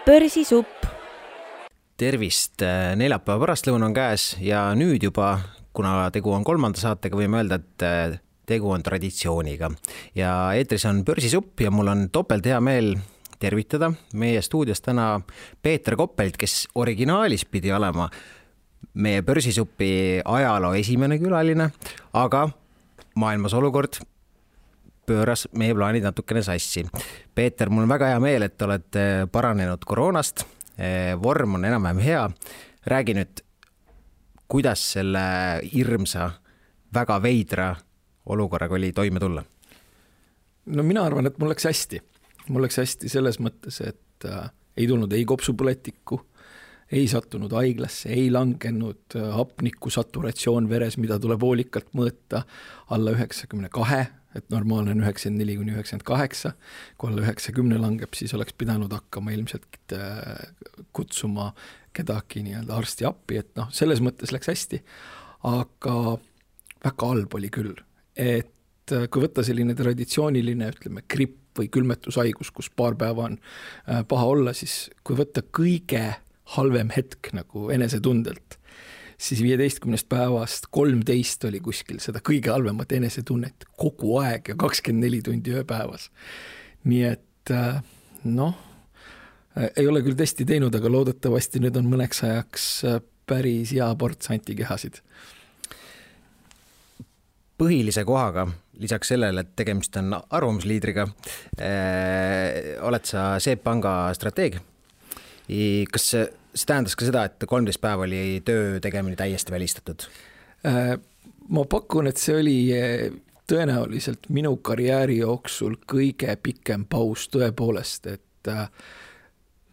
Börsisupp. Tervist, neljapäeva pärastlõuna on käes ja nüüd juba, kuna tegu on 3. saatega, võime öelda, et tegu on traditsiooniga. Ja eetris on Börsisupp ja mul on topelt hea meel tervitada meie stuudios täna Peeter Koppelt, kes originaalis pidi olema meie Börsisuppi ajaloo esimene külaline, aga maailmas olukord pööras meie plaanid natukene sassi. Peeter, mul on väga hea meel, et oled paranenud koroonast. Vorm on enam-vähem hea. Räägi nüüd, kuidas selle hirmsa, väga veidra olukorraga oli toime tulla? No mina arvan, et mul läks hästi. Mul läks hästi selles mõttes, et ei tulnud ei kopsupõletikku, ei sattunud haiglasse, ei langenud hapniku saturatsioon veres, mida tuleb hoolikalt mõõta alla 92, et normaalne on 94-98. Kui alla 90 langeb, siis oleks pidanud hakkama ilmselt kutsuma kedagi nii-öelda arsti appi, et selles mõttes läks hästi. Aga väga halb oli küll, et kui võtta selline traditsiooniline, ütleme, gripp või külmetushaigus, kus paar päeva on paha olla, siis kui võtta kõige halvem hetk nagu enesetundelt, siis 15 päevast 13 oli kuskil seda kõige halvemat enesetunnet kogu aeg ja 24 tundi ööpäevas. Nii et ei ole küll testi teinud, aga loodetavasti nüüd on mõneks ajaks päris hea ports antikehasid. Põhilise kohaga, lisaks sellele, et tegemist on arvamusliidriga, oled sa SEB Panga strateeg. Kas see tähendas ka seda, et 13 päeva oli töö tegemine täiesti välistatud? Ma pakun, et see oli tõenäoliselt minu karjääri jooksul kõige pikem paus tõepoolest, et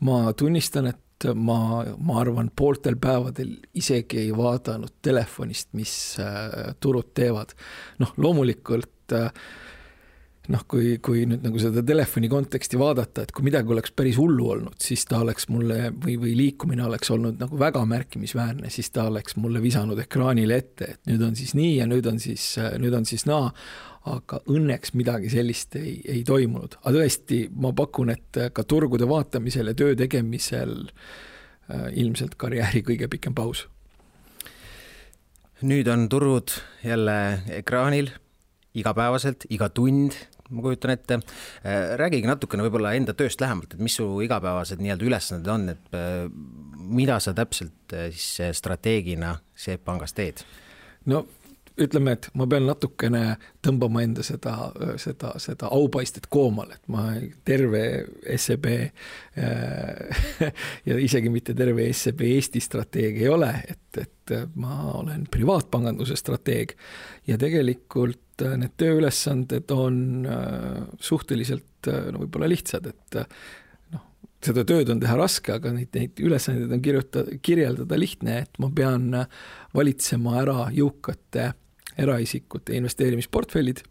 ma tunnistan, et ma arvan, pooltel päevadel isegi ei vaadanud telefonist, mis turud teevad. Loomulikult kui nüüd nagu seda telefoni konteksti vaadata, et kui midagi oleks päris hullu olnud, siis ta oleks mulle või liikumine oleks olnud nagu väga märkimisväärne, siis ta oleks mulle visanud ekraanile ette, et nüüd on siis nii ja nüüd on siis naa, aga õnneks midagi sellist ei toimunud. Aga tõesti, ma pakun, et ka turgude vaatamisel ja töö tegemisel ilmselt karjääri kõige pikem paus. Nüüd on turud jälle ekraanil igapäevaselt, iga tund, ma kujutan ette. Räägigi natukene võib-olla enda tööst lähemalt, et mis su igapäevased nii-öelda ülesanded on, et mida sa täpselt siis strateegina SEB Pangas teed? No ütleme, et ma pean natukene tõmbama enda seda aupaistet koomale, et ma terve SEB ja isegi mitte terve SEB Eesti strateeg ei ole, et ma olen privaatpanganduse strateeg ja tegelikult need tööülesanded on suhteliselt võib-olla lihtsad, et seda tööd on teha raske, aga neid ülesandeid on kirjeldada lihtne, et ma pean valitsema ära jõukate eraisikute investeerimisportfellid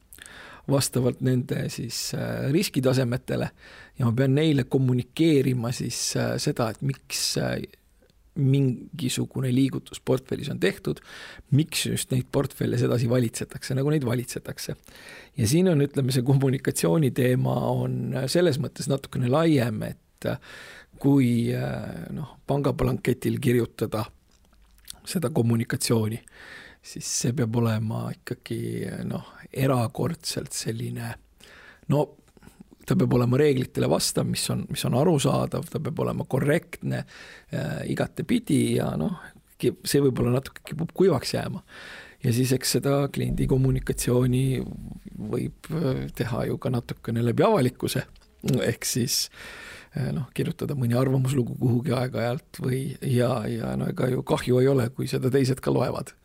vastavalt nende siis riskitasemetele ja ma pean neile kommunikeerima siis seda, et miks mingisugune liigutus portfellis on tehtud, miks just neid portfelle sedasi valitsetakse, nagu neid valitsetakse. Ja siin on, ütleme, see kommunikatsiooni teema on selles mõttes natukene laiem, et kui pangaplanketil kirjutada seda kommunikatsiooni, siis see peab olema ikkagi erakordselt selline, ta peab olema reeglitele vastav, mis on arusaadav, ta peab olema korrektne igatepidi ja see võib-olla natuke kipub kuivaks jääma. Ja siis eks seda kliendi kommunikatsiooni võib teha ju ka natukene läbi avalikkuse, ehk siis kirjutada mõni arvamuslugu kuhugi aeg-ajalt ja ega ju kahju ei ole, kui seda teised ka loevad.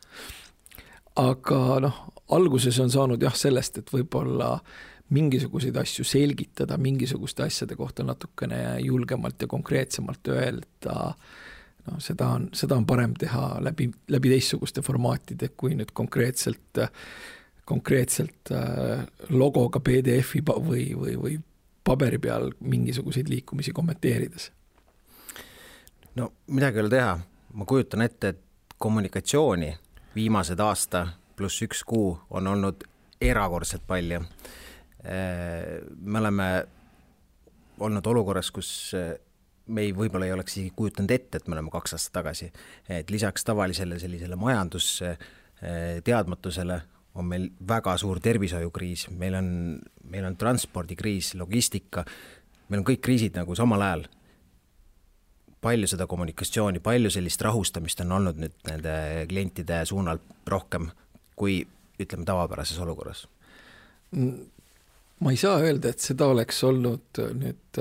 Aga alguses on saanud sellest, et võib-olla mingisuguseid asju selgitada, mingisuguste asjade kohta natukene julgemalt ja konkreetsemalt öelda, seda on parem teha läbi teistsuguste formaatide, kui nüüd konkreetselt logoga PDF-i või paberi peal mingisuguseid liikumisi kommenteerides. No midagi ei ole teha. Ma kujutan ette, et kommunikatsiooni viimased aasta pluss 1 kuu on olnud erakordselt palju. Me oleme olnud olukorras, kus me võib-olla ei oleks isegi kujutanud ette, et me oleme 2 aastat tagasi. Et lisaks tavalisele sellisele majandusteadmatusele on meil väga suur tervishoiukriis, meil on transpordikriis, logistika, meil on kõik kriisid nagu samal ajal. Palju seda kommunikatsiooni, palju sellist rahustamist on olnud nüüd nende klientide suunal rohkem kui, ütleme, tavapärases olukorras? Ma ei saa öelda, et seda oleks olnud nüüd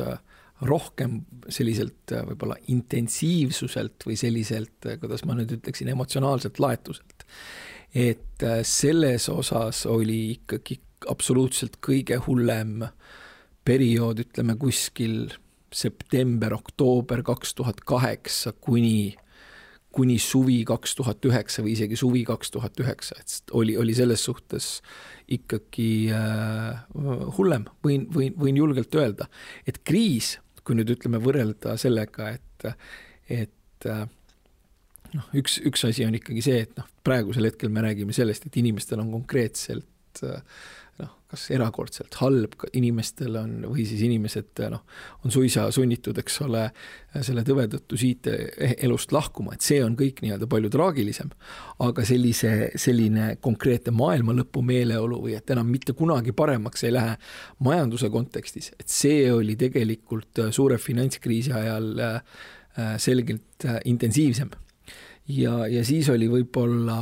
rohkem selliselt võib-olla intensiivsuselt või selliselt, kuidas ma nüüd ütleksin, emotsionaalselt laetuselt. Et selles osas oli ikkagi absoluutselt kõige hullem periood, ütleme kuskil september, oktoober 2008 kuni suvi 2009 või isegi suvi 2009, et oli selles suhtes ikkagi hullem, võin julgelt öelda, et kriis, kui nüüd ütleme võrrelda sellega, et üks asi on ikkagi see, et praegusel hetkel me räägime sellest, et inimestel on konkreetselt kas erakordselt halb, inimestel on, või siis inimesed on suisa sunnitud, eks ole, selle tõve tõttu siit elust lahkuma, et see on kõik nii-öelda palju traagilisem, aga selline konkreetne maailma lõpu meeleolu või et enam mitte kunagi paremaks ei lähe majanduse kontekstis, et see oli tegelikult suure finantskriisi ajal selgelt intensiivsem. Ja siis oli võib-olla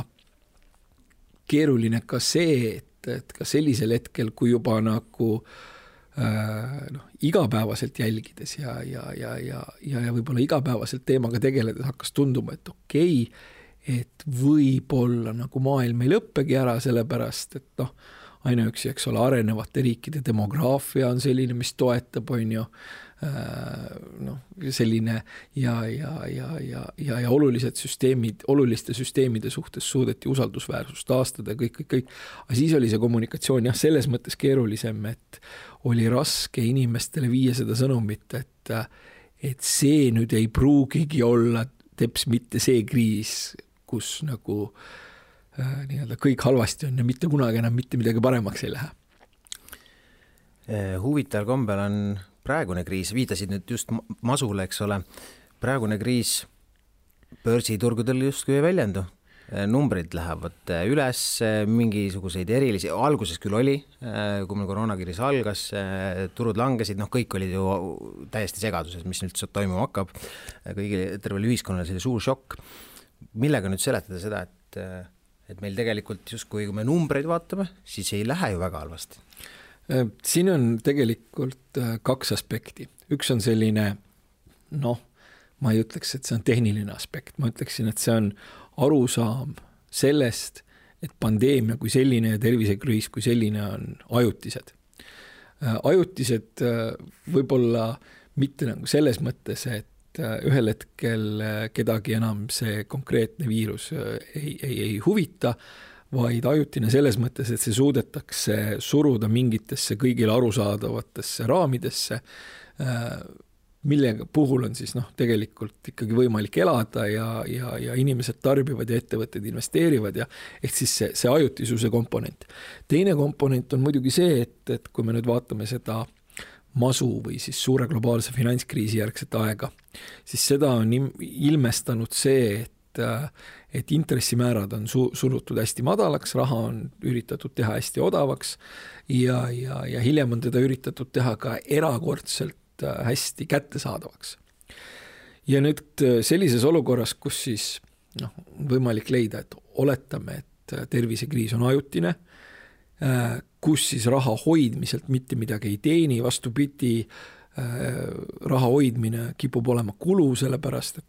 keeruline ka see, et ka sellisel hetkel, kui juba nagu igapäevaselt jälgides ja võib-olla igapäevaselt teemaga tegeledes hakkas tunduma, et okei, et võib-olla nagu maailm ei lõppegi ära, sellepärast, et ainuüksi, eks ole, arenevate riikide demograafia on selline, mis toetab, on ju, selline ja olulised süsteemid, oluliste süsteemide suhtes suudeti usaldusväärsust taastada, kõik. Aga siis oli see kommunikatsioon selles mõttes keerulisem, et oli raske inimestele viia seda sõnumit, et see nüüd ei pruugigi olla teps mitte see kriis, kus nagu nii-öelda kõik halvasti on ja mitte kunagi enam mitte midagi paremaks ei lähe. Huvitaval kombel on praegune kriis, viitasid nüüd just masule, eks ole, praegune kriis börsiturgudel justkui ei väljendu. Numbrid lähevad üles, mingisuguseid erilisi, alguses küll oli, kui meil koroonakriis algas, turud langesid, kõik olid ju täiesti segaduses, mis nüüd toimuma hakkab. Kõigile tervele ühiskonnale see suur šokk. Millega nüüd seletada seda, et meil tegelikult justkui, kui me numbreid vaatame, siis ei lähe ju väga halvasti? Siin on tegelikult 2 aspekti. Üks on selline, ma ei ütleks, et see on tehniline aspekt. Ma ütleksin, et see on arusaam sellest, et pandeemia kui selline ja tervisekriis kui selline on ajutised. Ajutised võib-olla mitte nagu selles mõttes, et ühel hetkel kedagi enam see konkreetne viirus ei huvita, vaid ajutine selles mõttes, et see suudetakse suruda mingitesse kõigile arusaadavatesse raamidesse, millega puhul on siis tegelikult ikkagi võimalik elada ja inimesed tarbivad ja ettevõtted investeerivad ja ehk siis see ajutisuse komponent. Teine komponent on muidugi see, et kui me nüüd vaatame seda masu või siis suure globaalse finantskriisi järgset aega, siis seda on ilmestanud see, et intressimäärad on surutud hästi madalaks, raha on üritatud teha hästi odavaks ja hiljem on teda üritatud teha ka erakordselt hästi kättesaadavaks. Ja nüüd sellises olukorras, kus siis võimalik leida, et oletame, et tervisekriis on ajutine, kus siis raha hoidmiselt mitte midagi ei teeni, vastupidi, raha hoidmine kipub olema kulu, sellepärast, et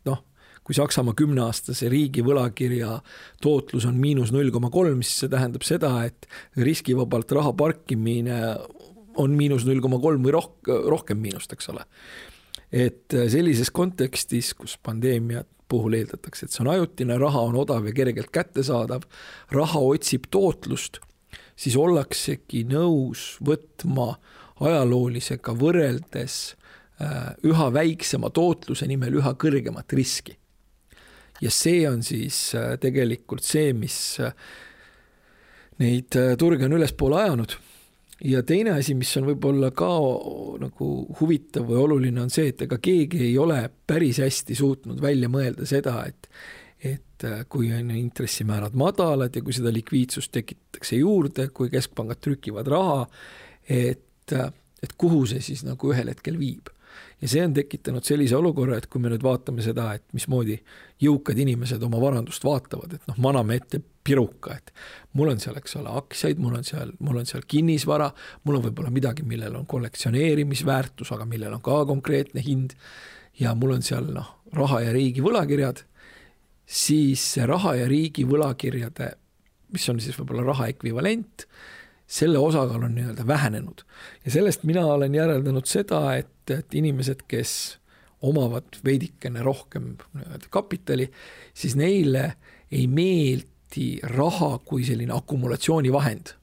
kui Saksamaa 10-aastase riigi võlakirja tootlus on -0,3, siis see tähendab seda, et riskivabalt raha parkimine on -0,3 või rohkem miinust, eks ole. Et sellises kontekstis, kus pandeemia puhul eeldatakse, et see on ajutine, raha on odav ja kergelt kättesaadav, raha otsib tootlust, siis ollaksegi nõus võtma ajaloolisega võrreldes üha väiksema tootluse nimel üha kõrgemat riski. Ja see on siis tegelikult see, mis neid turge on ülespoole ajanud. ja teine asi, mis on võib-olla ka nagu huvitav või oluline, on see, et ega keegi ei ole päris hästi suutnud välja mõelda seda, et kui on intressimäärad madalad ja kui seda likviidsust tekitatakse juurde, kui keskpangad trükivad raha, et kuhu see siis nagu ühel hetkel viib. Ja see on tekitanud sellise olukorra, et kui me nüüd vaatame seda, et mismoodi jõukad inimesed oma varandust vaatavad, et maname ette piruka, et mul on seal, eks ole, aktsiaid, mul on seal kinnisvara, mul on võib-olla midagi, millel on kollektsioneerimisväärtus, aga millel on ka konkreetne hind ja mul on seal raha ja riigi võlakirjad, siis raha ja riigi võlakirjade, mis on siis võib-olla raha ekvivalent, selle osakaal on nii-öelda vähenenud. Ja sellest mina olen järeldanud seda, et inimesed, kes omavad veidikene rohkem kapitali, siis neile ei meeldi raha kui selline akumulatsioonivahend.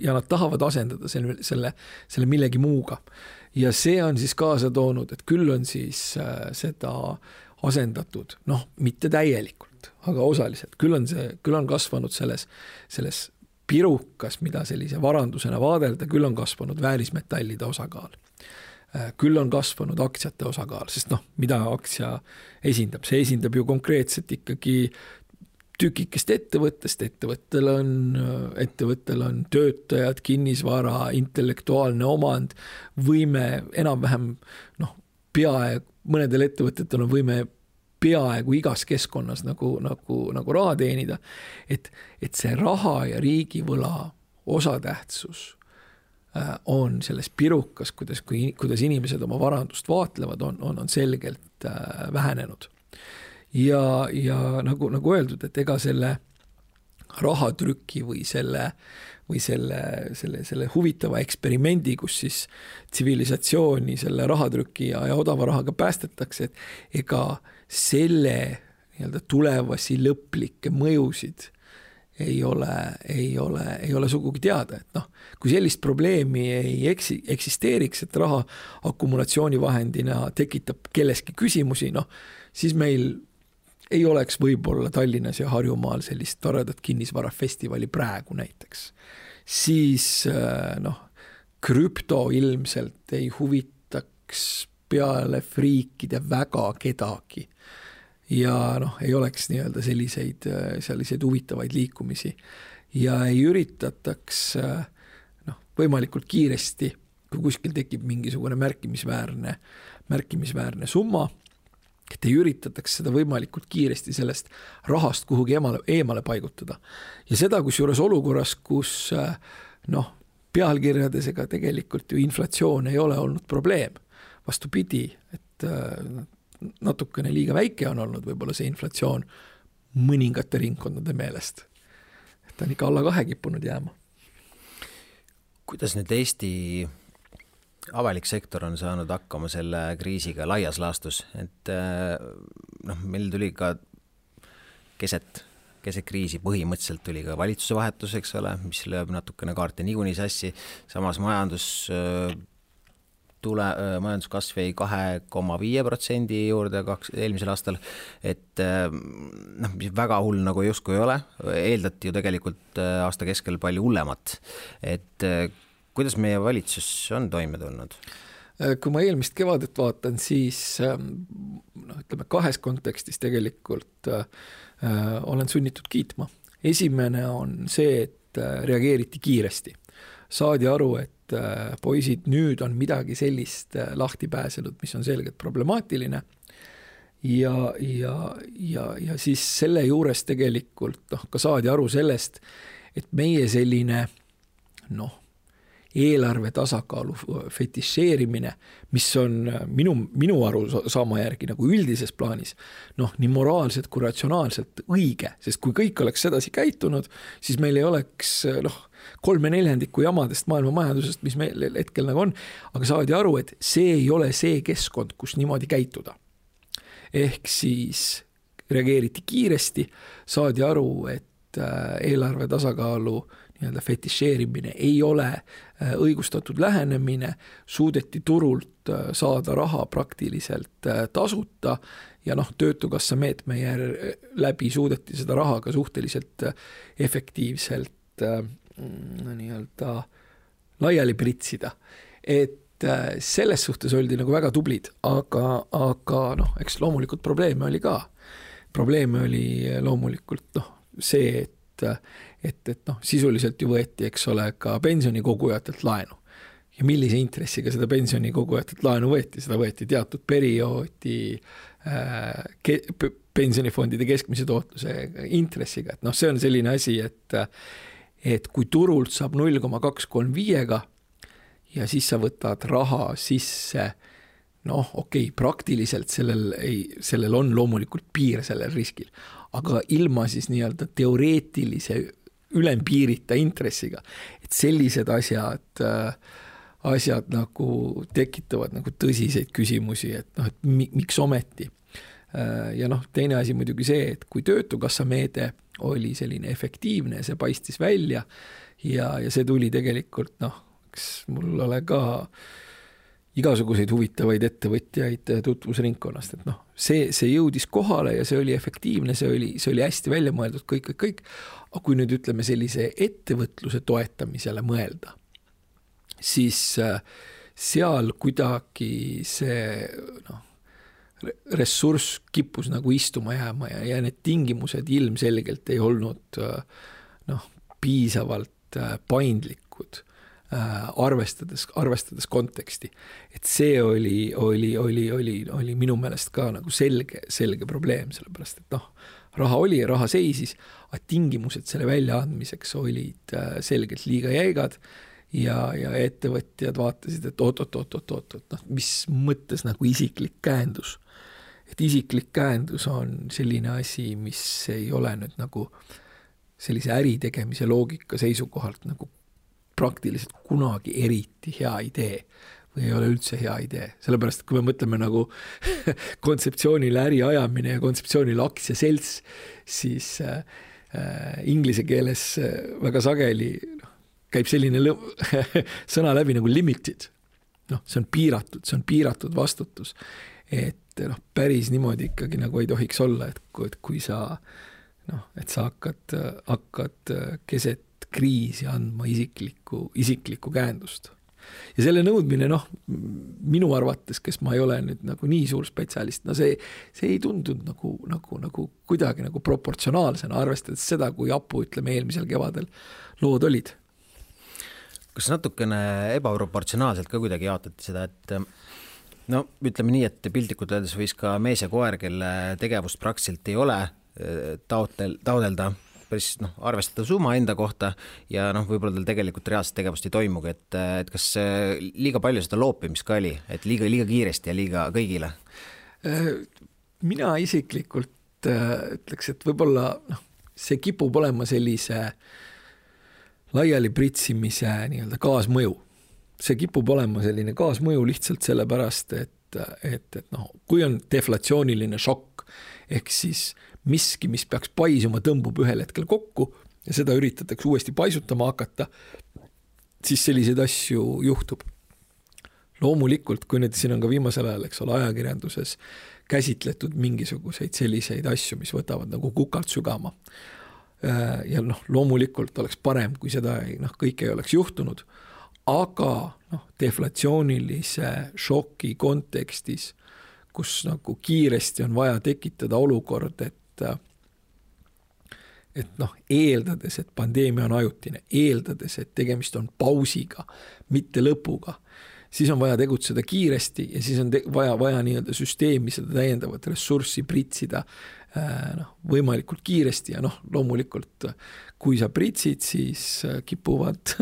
Ja nad tahavad asendada selle millegi muuga. Ja see on siis kaasa toonud, et küll on siis seda asendatud, mitte täielikult, aga osaliselt. Küll on kasvanud selles pirukas, mida sellise varandusena vaadelda, küll on kasvanud väärismetallide osakaal. Küll on kasvanud aktsiate osakaal, sest mida aktsia esindab? See esindab ju konkreetselt ikkagi tükikest ettevõttest. Ettevõttel on töötajad, kinnisvara, intellektuaalne omand, võime enam-vähem, mõnedel ettevõtetel on võime peaaegu igas keskkonnas nagu raha teenida, et see raha ja riigivõla osatähtsus on selles pirukas, kuidas inimesed oma varandust vaatlevad, on selgelt vähenenud. Ja nagu öeldud, et ega selle rahatrüki või selle huvitava eksperimendi, kus siis tsivilisatsiooni selle rahatrüki ja odava rahaga päästetakse, et ega selle nii-öelda tulevasi lõplikke mõjusid ei ole sugugi teada, et kui sellist probleemi ei eksisteeriks, et raha akumulatsioonivahendina tekitab kelleski küsimusi, siis meil ei oleks võib-olla Tallinnas ja Harjumaal sellist toredat kinnisvarafestivali praegu näiteks. Siis krüpto ilmselt ei huvitaks peale friikide väga kedagi ja ei oleks nii-öelda selliseid huvitavaid liikumisi ja ei üritataks võimalikult kiiresti, kui kuskil tekib mingisugune märkimisväärne summa, et ei üritataks seda võimalikult kiiresti sellest rahast kuhugi eemale paigutada. Ja seda kusjuures olukorras, kus pealkirjades ega tegelikult ju inflatsioon ei ole olnud probleem. Vastupidi, et natukene liiga väike on olnud võib-olla see inflatsioon mõningate ringkondade meelest. Et ta on ikka alla 2 kippunud jääma. Kuidas nüüd Eesti avalik sektor on saanud hakkama selle kriisiga laias laastus, et meil tuli ka keset kriisi põhimõtteliselt tuli ka valitsuse vahetus, eks ole, mis lööb natukene kaarte niikuinii sassi, samas majanduskasv jäi 2,5% juurde eelmisel aastal, et väga hull nagu justkui ei ole, eeldati ju tegelikult aasta keskel palju hullemat, et kuidas meie valitsus on toime tulnud? Kui ma eelmist kevadet vaatan, siis ütleme 2 kontekstis tegelikult olen sunnitud kiitma. Esimene on see, et reageeriti kiiresti. Saadi aru, et poisid, nüüd on midagi sellist lahti pääsenud, mis on selgelt problemaatiline. Ja siis selle juures tegelikult ka saadi aru sellest, et meie selline eelarve tasakaalu fetišeerimine, mis on minu arusaama järgi nagu üldises plaanis, nii moraalselt kui ratsionaalselt õige, sest kui kõik oleks sedasi käitunud, siis meil ei oleks 3/4 jamadest maailma majandusest, mis meil hetkel nagu on, aga saadi aru, et see ei ole see keskkond, kus niimoodi käituda. Ehk siis reageeriti kiiresti, saadi aru, et eelarve tasakaalu nii-öelda fetišeerimine ei ole õigustatud lähenemine, suudeti turult saada raha praktiliselt tasuta ja töötukassa meetme läbi suudeti seda raha ka suhteliselt efektiivselt nii-öelda laiali pritsida, et selles suhtes oldi nagu väga tublid, aga noh, eks loomulikult probleeme oli ka. Probleeme oli loomulikult see, et noh, sisuliselt ju võeti, eks ole, ka pensionikogujatelt laenu. Ja millise intressiga seda pensionikogujatelt laenu võeti? Seda võeti teatud perioodi pensionifondide keskmise tootluse intressiga. Et noh, see on selline asi, et kui turult saab 0,235-ga ja siis sa võtad raha sisse, noh, okei, praktiliselt sellel on loomulikult piir sellel riskil, aga ilma siis nii-öelda teoreetilise ülempiirita intressiga, et sellised asjad nagu tekitavad nagu tõsiseid küsimusi, et noh, et miks ometi. Ja noh, teine asi muidugi see, et kui töötukassa meede oli selline efektiivne, see paistis välja ja see tuli tegelikult, noh, eks mul ole ka igasuguseid huvitavaid ettevõtjaid tutvusringkonnast, et noh, see jõudis kohale ja see oli efektiivne, see oli hästi välja mõeldud, kõik. Aga kui nüüd ütleme sellise ettevõtluse toetamisele mõelda, siis seal kuidagi see ressurss kippus nagu istuma jääma ja need tingimused ilmselgelt ei olnud piisavalt paindlikud, arvestades konteksti. Et see oli minu meelest ka nagu selge probleem, sellepärast, et noh, raha oli ja raha seisis, aga tingimused selle väljaandmiseks olid selgelt liiga jäigad ja ettevõtjad vaatasid, et oot, mis mõttes nagu isiklik käendus. Et isiklik käendus on selline asi, mis ei ole nüüd nagu sellise äritegemise loogika seisukohalt nagu praktiliselt kunagi eriti hea idee või ei ole üldse hea idee. Sellepärast, kui me mõtleme nagu kontseptsioonile äri ajamine ja kontseptsioonile aktsiaselts, siis inglise keeles väga sageli käib selline sõna läbi nagu limited. Noh, see on piiratud vastutus. Et noh, päris niimoodi ikkagi nagu ei tohiks olla, et kui sa et sa hakkad keset kriisi andma isiklikku käendust. Ja selle nõudmine, minu arvates, kes ma ei ole nüüd nagu nii suur spetsialist, see ei tundunud nagu kuidagi nagu proportsionaalsena, arvestades seda, kui apu, ütleme, eelmisel kevadel lood olid. Kas natukene ebaproportsionaalselt ka kuidagi jaotati seda, et ütleme nii, et piltlikult öeldes võis ka mees ja koer, kelle tegevust praktiliselt ei ole taodelda päris arvestada summa enda kohta ja võib-olla tal tegelikult reaalset tegevust ei toimugi, et kas liiga palju seda loopimist ka oli, et liiga kiiresti ja liiga kõigile? Mina isiklikult ütleks, et võib-olla see kipub olema sellise laiali pritsimise nii-öelda kaasmõju. See kipub olema selline kaasmõju lihtsalt sellepärast, et kui on deflatsiooniline šokk, ehk siis miski, mis peaks paisuma, tõmbub ühel hetkel kokku ja seda üritatakse uuesti paisutama hakata, siis selliseid asju juhtub. Loomulikult, kui nüüd siin on ka viimasel ajal, eks ole, ajakirjanduses käsitletud mingisuguseid selliseid asju, mis võtavad nagu kukalt sügama. Ja loomulikult oleks parem, kui seda kõik ei oleks juhtunud, aga deflatsioonilise šoki kontekstis, kus nagu kiiresti on vaja tekitada olukord, et eeldades, et pandeemia on ajutine, eeldades, et tegemist on pausiga, mitte lõpuga, siis on vaja tegutseda kiiresti ja siis on vaja nii-öelda süsteemi seda täiendavat ressurssi pritsida võimalikult kiiresti ja loomulikult, kui sa pritsid, siis kipuvad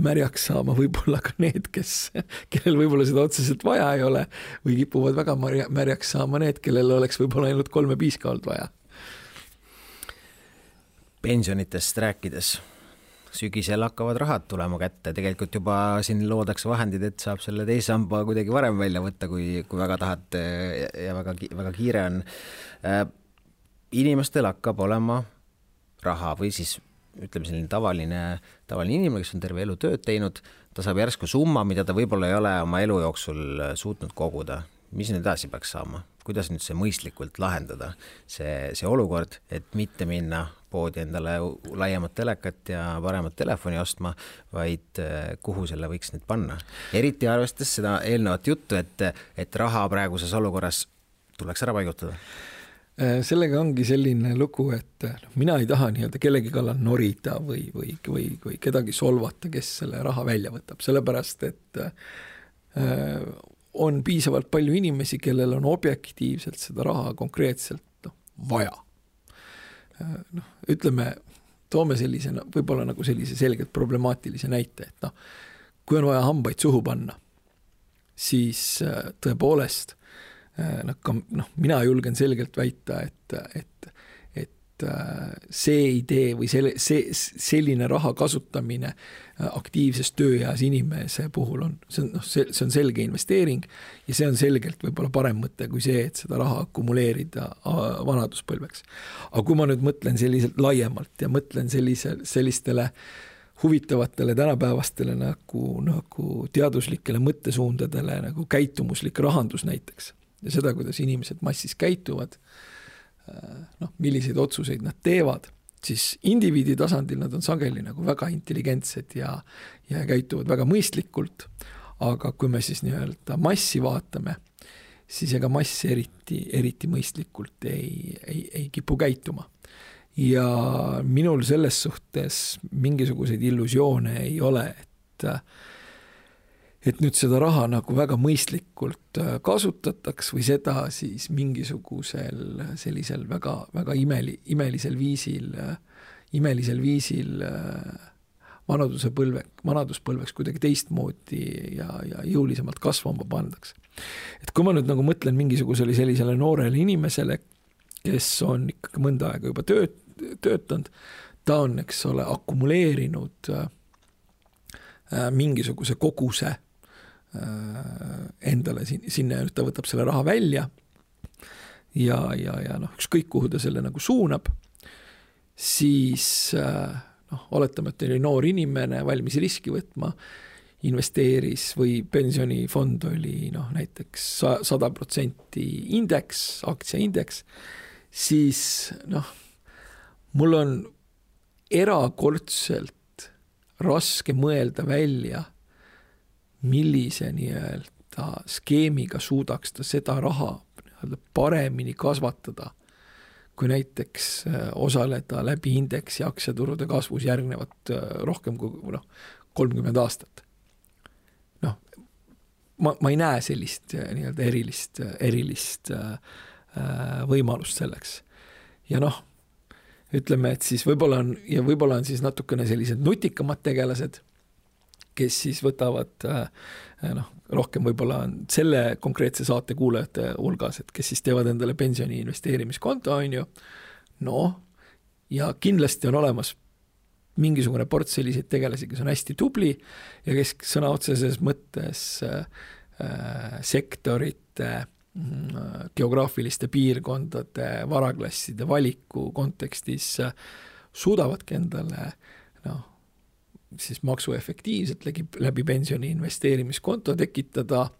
märjaks saama võib-olla ka need, kellel võib-olla seda otseselt vaja ei ole või kipuvad väga märjaks saama need, kellel oleks võib-olla ainult 3 piiska olnud vaja. Pensionitest rääkides, sügisel hakkavad rahad tulema kätte, tegelikult juba siin loodakse vahendid, et saab selle teise samba kuidagi varem välja võtta, kui väga tahad ja väga kiire on. Inimestel hakkab olema raha või siis ütleme selline tavaline inimene, kes on terve elu tööd teinud, ta saab järsku summa, mida ta võib-olla ei ole oma elu jooksul suutnud koguda. Mis nüüd edasi peaks saama? Kuidas nüüd see mõistlikult lahendada? See olukord, et mitte minna poodi endale laiemat telekat ja paremat telefoni ostma, vaid kuhu selle võiks nüüd panna. Eriti arvestades seda eelnevat juttu, et raha praeguses olukorras tuleks ära paigutada. Sellega ongi selline lugu, et mina ei taha nii-öelda kellegi kallal norida või kedagi solvata, kes selle raha välja võtab, sellepärast, et on piisavalt palju inimesi, kellel on objektiivselt seda raha konkreetselt vaja. Ütleme, toome sellise, võib-olla nagu sellise selgelt problemaatilise näite, et kui on vaja hambaid suhu panna, siis tõepoolest mina julgen selgelt väita, et see idee või selline raha kasutamine aktiivses tööeas inimese puhul see on selge investeering ja see on selgelt võib-olla parem mõte kui see, et seda raha akumuleerida vanaduspõlveks. Aga kui ma nüüd mõtlen selliselt laiemalt ja mõtlen sellistele huvitavatele tänapäevastele nagu teaduslikele mõttesuundadele nagu käitumuslik rahandus näiteks, ja seda, kuidas inimesed massis käituvad, milliseid otsuseid nad teevad, siis indiviidi tasandil nad on sageli nagu väga intelligentsed ja käituvad väga mõistlikult, aga kui me siis nii-öelda massi vaatame, siis ega mass eriti mõistlikult ei kipu käituma. Ja minul selles suhtes mingisuguseid illusioone ei ole, et nüüd seda raha nagu väga mõistlikult kasutataks või seda siis mingisugusel sellisel väga, väga imelisel viisil vanaduspõlveks kuidagi teistmoodi ja jõulisemalt kasvama pandaks. Et kui ma nüüd nagu mõtlen mingisugusele sellisele noorele inimesele, kes on ikkagi mõnda aega juba töötanud, ta on, eks ole, akumuleerinud mingisuguse koguse endale sinna, ta võtab selle raha välja ja ükskõik kuhu ta selle nagu suunab, siis oletame, et oli noor inimene valmis riski võtma, investeeris või pensionifond oli näiteks 100% indeks, aktsiaindeks, siis mul on erakordselt raske mõelda välja, millise nii-öelda skeemiga suudaks ta seda raha paremini kasvatada, kui näiteks osaleda läbi indeksi aktsiaturude kasvus järgnevat rohkem kui 30 aastat. Ma ei näe sellist nii-öelda erilist võimalust selleks. Ja ütleme, et siis võib-olla on siis natukene sellised nutikamad tegelased, kes siis võtavad rohkem võib-olla selle konkreetse saate kuulajate hulgas, et kes siis teevad endale pensioni investeerimiskonto, on ju. Ja kindlasti on olemas mingisugune port selliseid tegelasi, kes on hästi tubli ja kes sõna otseses mõttes sektorite, geograafiliste piirkondade, varaklasside valiku kontekstis suudavadki endale siis maksuefektiivselt läbi pensioni investeerimiskonto tekitada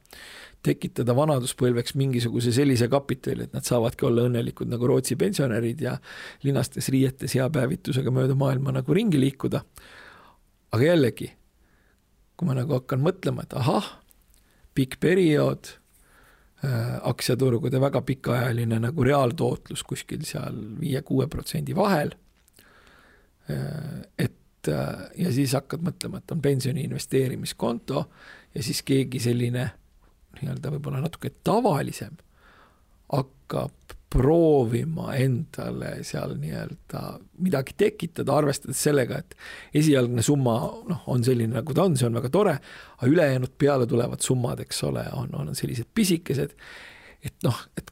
vanaduspõlveks mingisuguse sellise kapitali, et nad saavadki olla õnnelikud nagu Rootsi pensionärid ja linastes riietes hea päevitusega mööda maailma nagu ringi liikuda. Aga jällegi, kui ma nagu hakkan mõtlema, et pikk periood, aktsiaturgude väga pikaajaline nagu reaaltootlus kuskil seal 5-6% vahel, ja siis hakkad mõtlema, et on pensioni investeerimiskonto ja siis keegi selline nii-öelda võib-olla natuke tavalisem hakkab proovima endale seal nii-öelda midagi tekitada, arvestades sellega, et esialgne summa on selline nagu ta on, see on väga tore, aga ülejäänud peale tulevad summad, eks ole, on sellised pisikesed, et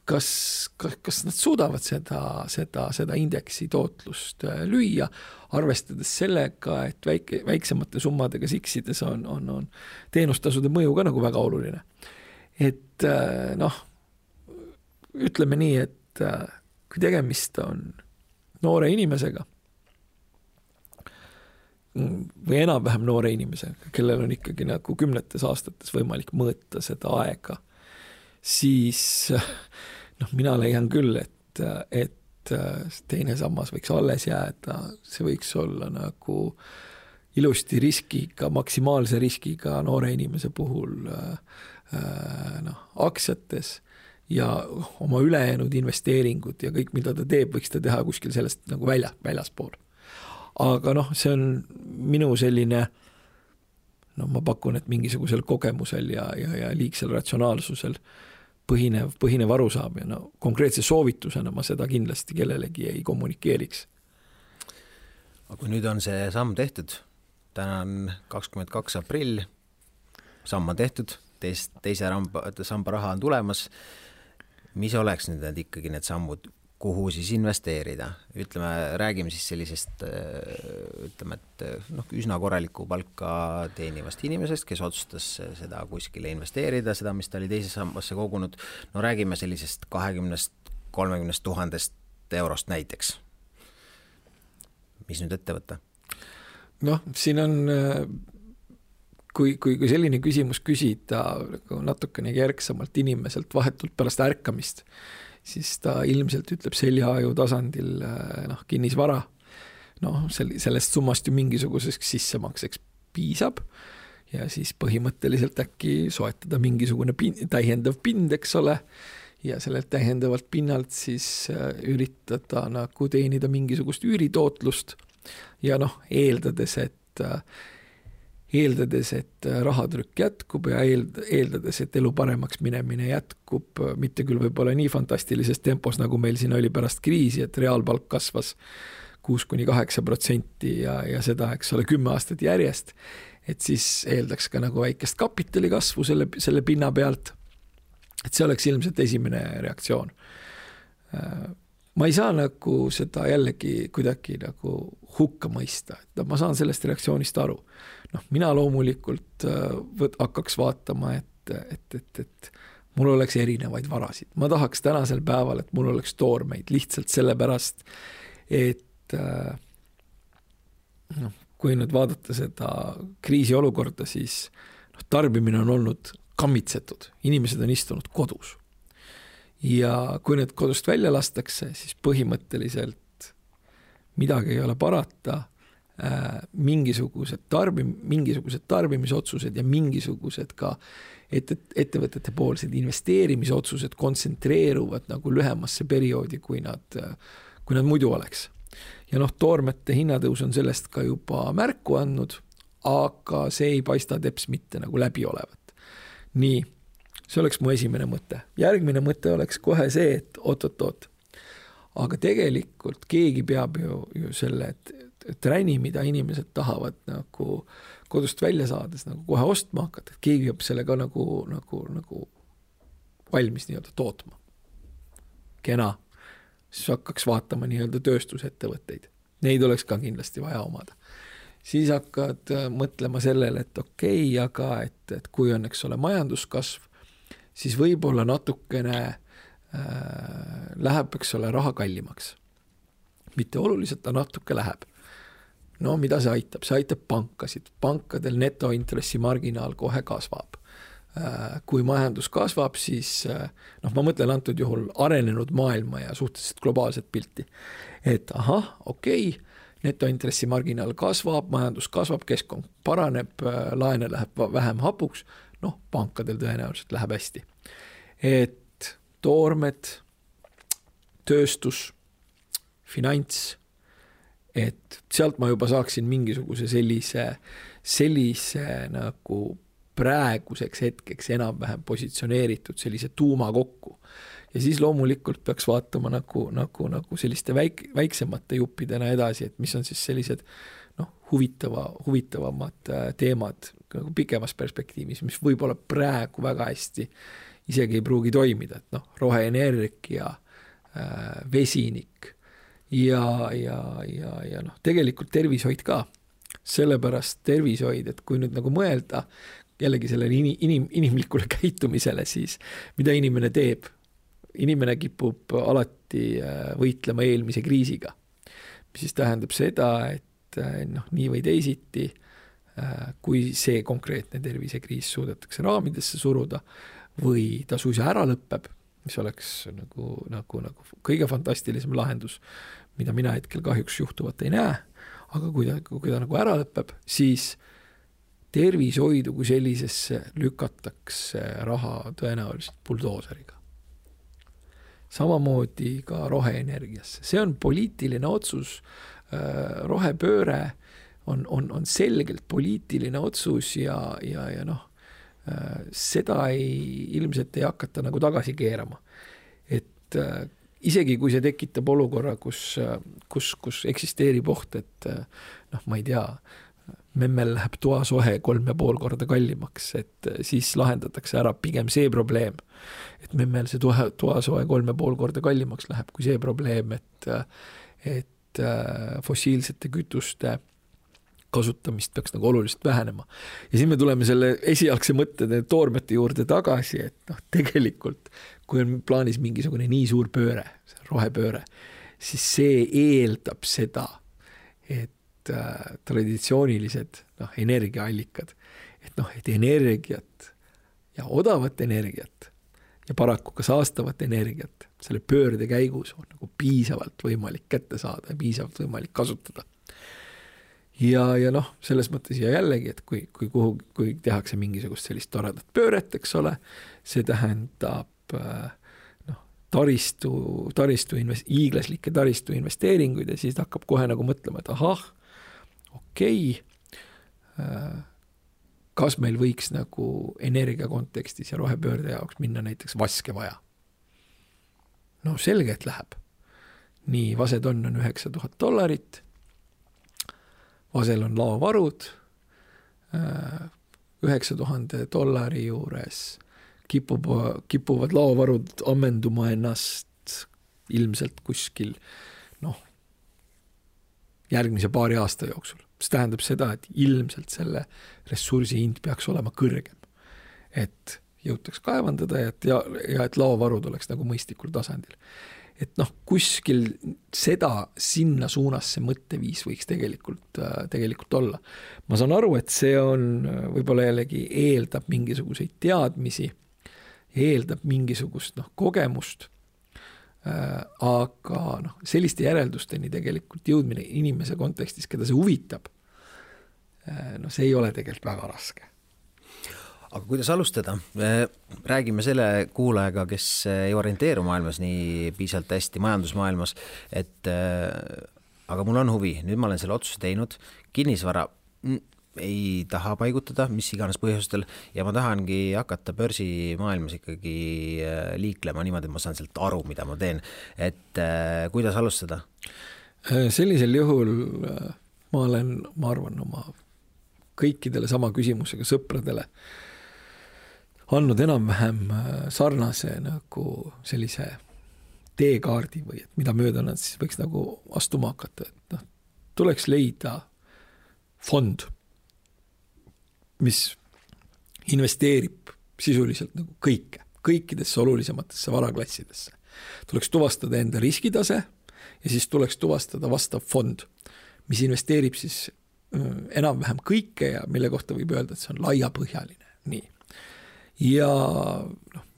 kas nad suudavad seda indeksi tootlust lüüa, arvestades sellega, et väiksemate summadega siksides on teenustasude mõju ka nagu väga oluline. Et ütleme nii, et kui tegemist on noore inimesega või enam-vähem noore inimesega, kellel on ikkagi nagu 10 aastates võimalik mõõta seda aega, siis mina leian küll, et teine sammas võiks alles jääda, see võiks olla nagu ilusti riskiga, maksimaalse riskiga noore inimese puhul aktsiates ja oma ülejäänud investeeringud ja kõik, mida ta teeb, võiks ta teha kuskil sellest nagu väljaspool. Aga see on minu selline, ma pakun, et mingisugusel kogemusel ja liigsel ratsionaalsusel põhinev arusaam ja konkreetse soovitusena ma seda kindlasti kellelegi ei kommunikeeriks. Aga kui nüüd on see samm tehtud, täna on 22. aprill, samm on tehtud, teise samba raha on tulemas, mis oleks nüüd ikkagi need sammud, kuhu siis investeerida? Ütleme, räägime siis sellisest, ütleme, et üsna korraliku palka teenivast inimesest, kes otsustas seda kuskile investeerida, seda, mis ta oli teise sambasse kogunud. Räägime sellisest 20-30 000 eurost näiteks. Mis nüüd ette võtta? Siin on, kui selline küsimus küsida natukene järgsamalt inimeselt vahetult pärast ärkamist, siis ta ilmselt ütleb seljaaju tasandil kinnisvara. Sellest summast ju mingisuguseks sissemakseks piisab ja siis põhimõtteliselt äkki soetada mingisugune täiendav pind, eks ole, ja sellelt täiendavalt pinnalt siis üritada nagu teenida mingisugust üüritootlust ja eeldades, et rahatrükk jätkub ja eeldades, et elu paremaks minemine jätkub, mitte küll võib-olla nii fantastilises tempos, nagu meil siin oli pärast kriisi, et reaalpalk kasvas 6-8% ja seda, eks ole, 10 aastat järjest, et siis eeldaks ka nagu väikest kapitali kasvu selle pinna pealt, et see oleks ilmselt esimene reaktsioon. Ma ei saa nagu seda jällegi kuidagi nagu hukka mõista, et ma saan sellest reaktsioonist aru. Mina loomulikult hakkaks vaatama, et mul oleks erinevaid varasid. Ma tahaks tänasel päeval, et mul oleks toormeid lihtsalt sellepärast, et kui nüüd vaadata seda kriisiolukorda, siis tarbimine on olnud kammitsetud. Inimesed on istunud kodus. Ja kui need kodust välja lastakse, siis põhimõtteliselt midagi ei ole parata, mingisugused tarbimisotsused ja mingisugused ka ettevõtete poolsed investeerimisotsused kontsentreeruvad nagu lühemasse perioodi, kui nad muidu oleks. Ja toormete hinnatõus on sellest ka juba märku andnud, aga see ei paista teps mitte nagu läbi olevat. Nii, see oleks mu esimene mõte. Järgmine mõte oleks kohe see, et oot. Aga tegelikult keegi peab ju selle träni, mida inimesed tahavad nagu kodust välja saades nagu kohe ostma hakata, et keegi peab selle ka nagu valmis nii-öelda tootma. Kena. Siis hakkaks vaatama nii-öelda tööstusettevõtteid. Neid oleks ka kindlasti vaja omada. Siis hakkad mõtlema sellele, et okei, aga et kui on, eks ole, majanduskasv, siis võib-olla natukene läheb, eks ole, raha kallimaks. Mitte oluliselt, ta natuke läheb. Mida see aitab? See aitab pankasid. Pankadel netointressimarginaal kohe kasvab. Kui majandus kasvab, siis ma mõtlen antud juhul arenenud maailma ja suhteliselt globaalset pilti. Et okei, netointressimarginaal kasvab, majandus kasvab, keskkond paraneb, laene läheb vähem hapuks, pankadel tõenäoliselt läheb hästi. Et toormed, tööstus, finants, et sealt ma juba saaksin mingisuguse sellise nagu praeguseks hetkeks enam-vähem positsioneeritud sellise tuuma kokku. Ja siis loomulikult peaks vaatama nagu selliste väiksemate juppidena edasi, et mis on siis sellised huvitavamad teemad nagu pikemas perspektiivis, mis võib-olla praegu väga hästi isegi ei pruugi toimida, et roheenergia, vesinik ja tegelikult tervishoid ka. Sellepärast tervishoid, et kui nüüd nagu mõelda jällegi sellele inimlikule käitumisele, siis mida inimene teeb? Inimene kipub alati võitlema eelmise kriisiga. Mis siis tähendab seda, et nii või teisiti, kui see konkreetne tervisekriis suudetakse raamidesse suruda või ta suisa ära lõpeb, mis oleks nagu kõige fantastilisem lahendus, mida mina hetkel kahjuks juhtuvat ei näe, aga kui ta nagu ära lõpeb, siis tervishoidu kui sellisesse lükatakse raha tõenäoliselt buldooseriga. Samamoodi ka roheenergiasse. See on poliitiline otsus, rohepööre on selgelt poliitiline otsus ja seda ilmselt ei hakata nagu tagasi keerama. Et isegi kui see tekitab olukorra, kus eksisteerib oht, et ma ei tea, memmel läheb toasohe 3,5 korda kallimaks, et siis lahendatakse ära pigem see probleem, et memmel see toasohe 3,5 korda kallimaks läheb, kui see probleem, et fossiilsete kütuste kasutamist peaks nagu oluliselt vähenema. Ja siin me tuleme selle esialgse mõttede toormete juurde tagasi, et tegelikult, kui on plaanis mingisugune nii suur pööre, rohepööre, siis see eeldab seda, et traditsioonilised energiaallikad, et energiat ja odavat energiat ja paraku ka saastavat energiat selle pöörde käigus on nagu piisavalt võimalik kätte saada ja piisavalt võimalik kasutada. Ja selles mõttes ja jällegi, et kui tehakse mingisugust sellist toredat pööret, eks ole, see tähendab hiiglaslikke taristu investeeringuid ja siis hakkab kohe nagu mõtlema, et okei, kas meil võiks nagu energia kontekstis ja rohepöörde jaoks minna näiteks vaske vaja? Selge, et läheb. Nii, vasetonn on $9,000, vasel on laovarud, $9,000 juures kipuvad laovarud ammenduma ennast ilmselt kuskil järgmise paari aasta jooksul. See tähendab seda, et ilmselt selle ressursi hind peaks olema kõrgem, et jõutaks kaevandada ja et laovarud oleks nagu mõistlikul tasandil. Et kuskil seda sinna suunas see mõtteviis võiks tegelikult olla. Ma saan aru, et see on võib-olla jällegi eeldab mingisuguseid teadmisi, eeldab mingisugust kogemust, aga selliste järeldusteni tegelikult jõudmine inimese kontekstis, keda see huvitab, see ei ole tegelikult väga raske. Aga kuidas alustada? Räägime selle kuulajaga, kes ei orienteeru maailmas nii piisavalt hästi majandusmaailmas, et aga mul on huvi, nüüd ma olen selle otsuse teinud, kinnisvara ei taha paigutada, mis iganes põhjustel, ja ma tahangi hakata börsimaailmas ikkagi liiklema niimoodi, et ma saan sealt aru, mida ma teen. Et kuidas alustada? Sellisel juhul ma arvan, oma kõikidele sama küsimusega sõpradele andnud enam-vähem sarnase nagu sellise teekaardi või et mida mööda nad siis võiks nagu astuma hakata. Et tuleks leida fond, mis investeerib sisuliselt nagu kõikidesse olulisematesse varaklassidesse. Tuleks tuvastada enda riskitase ja siis tuleks tuvastada vastav fond, mis investeerib siis enam-vähem kõike ja mille kohta võib öelda, et see on laiapõhjaline. Nii. Ja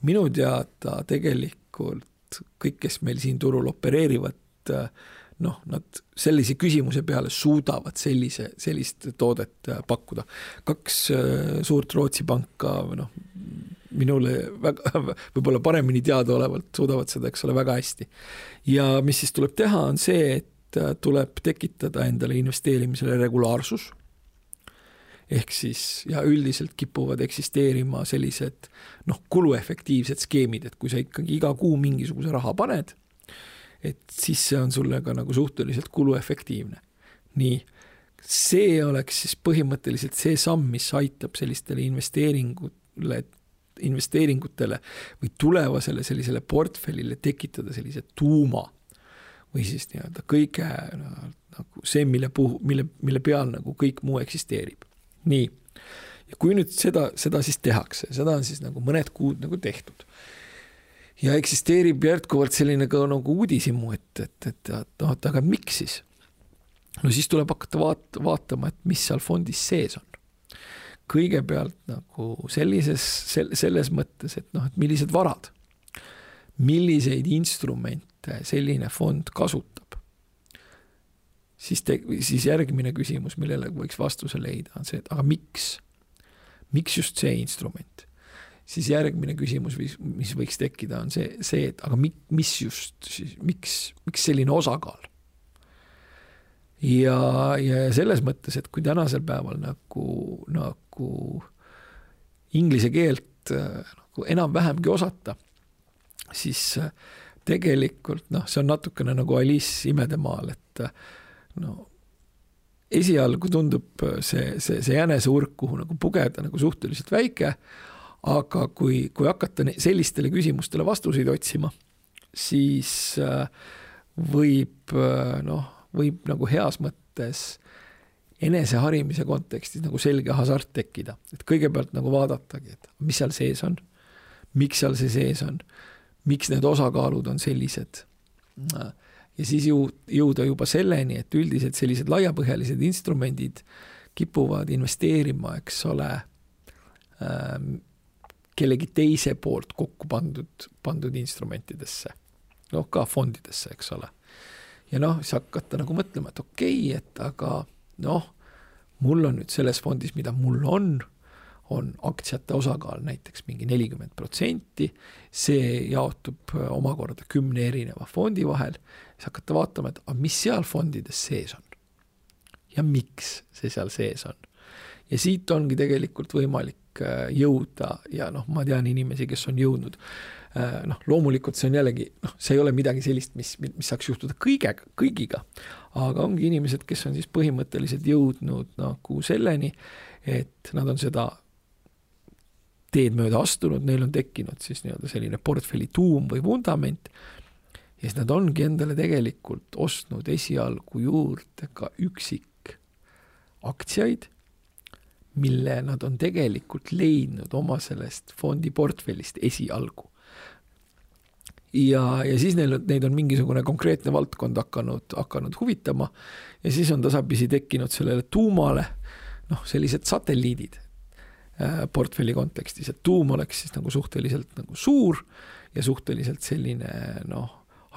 minu teada tegelikult kõik, kes meil siin turul opereerivad, nad sellise küsimuse peale suudavad sellist toodet pakkuda. 2 suurt Rootsi panka, minule võib-olla paremini teada olevalt suudavad seda, eks ole, väga hästi. Ja mis siis tuleb teha, on see, et tuleb tekitada endale investeerimisele regulaarsus, ehk siis ja üldiselt kipuvad eksisteerima sellised kuluefektiivsed skeemid, et kui sa ikkagi iga kuu mingisuguse raha paned, et siis see on sulle ka nagu suhteliselt kuluefektiivne. Nii, see oleks siis põhimõtteliselt see samm, mis aitab sellistele investeeringutele või tulevasele sellisele portfellile tekitada sellise tuuma või siis nii-öelda kõige nagu see, mille peal nagu kõik muu eksisteerib. Nii, ja kui nüüd seda siis tehakse, seda on siis nagu mõned kuud nagu tehtud ja eksisteerib jätkuvalt selline ka nagu uudisimu, et aga miks siis? Siis tuleb hakata vaatama, et mis seal fondis sees on. Kõigepealt nagu selles mõttes, et millised varad, milliseid instrumente selline fond kasutab, siis järgmine küsimus, millele võiks vastuse leida, on see, et aga miks just see instrument? Siis järgmine küsimus, mis võiks tekkida, on see, et aga miks selline osakaal? Ja selles mõttes, et kui tänasel päeval nagu inglise keelt nagu enam-vähemgi osata, siis tegelikult see on natukene nagu Alice imedemaal, et esialgu tundub see jäneseurk, kuhu nagu pugeda nagu suhteliselt väike, aga kui hakata sellistele küsimustele vastuseid otsima, siis võib nagu heas mõttes eneseharimise kontekstis nagu selge hasart tekkida. Et kõigepealt nagu vaadatagi, et mis seal sees on, miks seal see sees on, miks need osakaalud on sellised. Ja siis jõuda juba selleni, et üldiselt sellised laiapõhjalised instrumendid kipuvad investeerima, eks ole, kellegi teise poolt kokku pandud instrumentidesse. Ka fondidesse, eks ole. Ja siis hakata nagu mõtlema, et okei, et aga mul on nüüd selles fondis, mida mul on aktsiate osakaal näiteks mingi 40%, see jaotub omakorda 10 erineva fondi vahel, siis hakata vaatama, et mis seal fondides sees on ja miks see seal sees on. Ja siit ongi tegelikult võimalik jõuda ja ma tean inimesi, kes on jõudnud. Loomulikult see on jällegi, see ei ole midagi sellist, mis saaks juhtuda kõigiga, aga ongi inimesed, kes on siis põhimõtteliselt jõudnud nagu selleni, et nad on seda teed mööda astunud, neil on tekkinud siis selline portfelli tuum või vundament ja siis nad ongi endale tegelikult ostnud esialgu juurde ka üksik aktsiaid, mille nad on tegelikult leidnud oma sellest fondi portfellist esialgu. Ja siis neid on mingisugune konkreetne valdkond hakanud huvitama ja siis on tasapisi tekkinud sellele tuumale sellised satelliidid portfelli kontekstis, et tuum oleks siis nagu suhteliselt nagu suur ja suhteliselt selline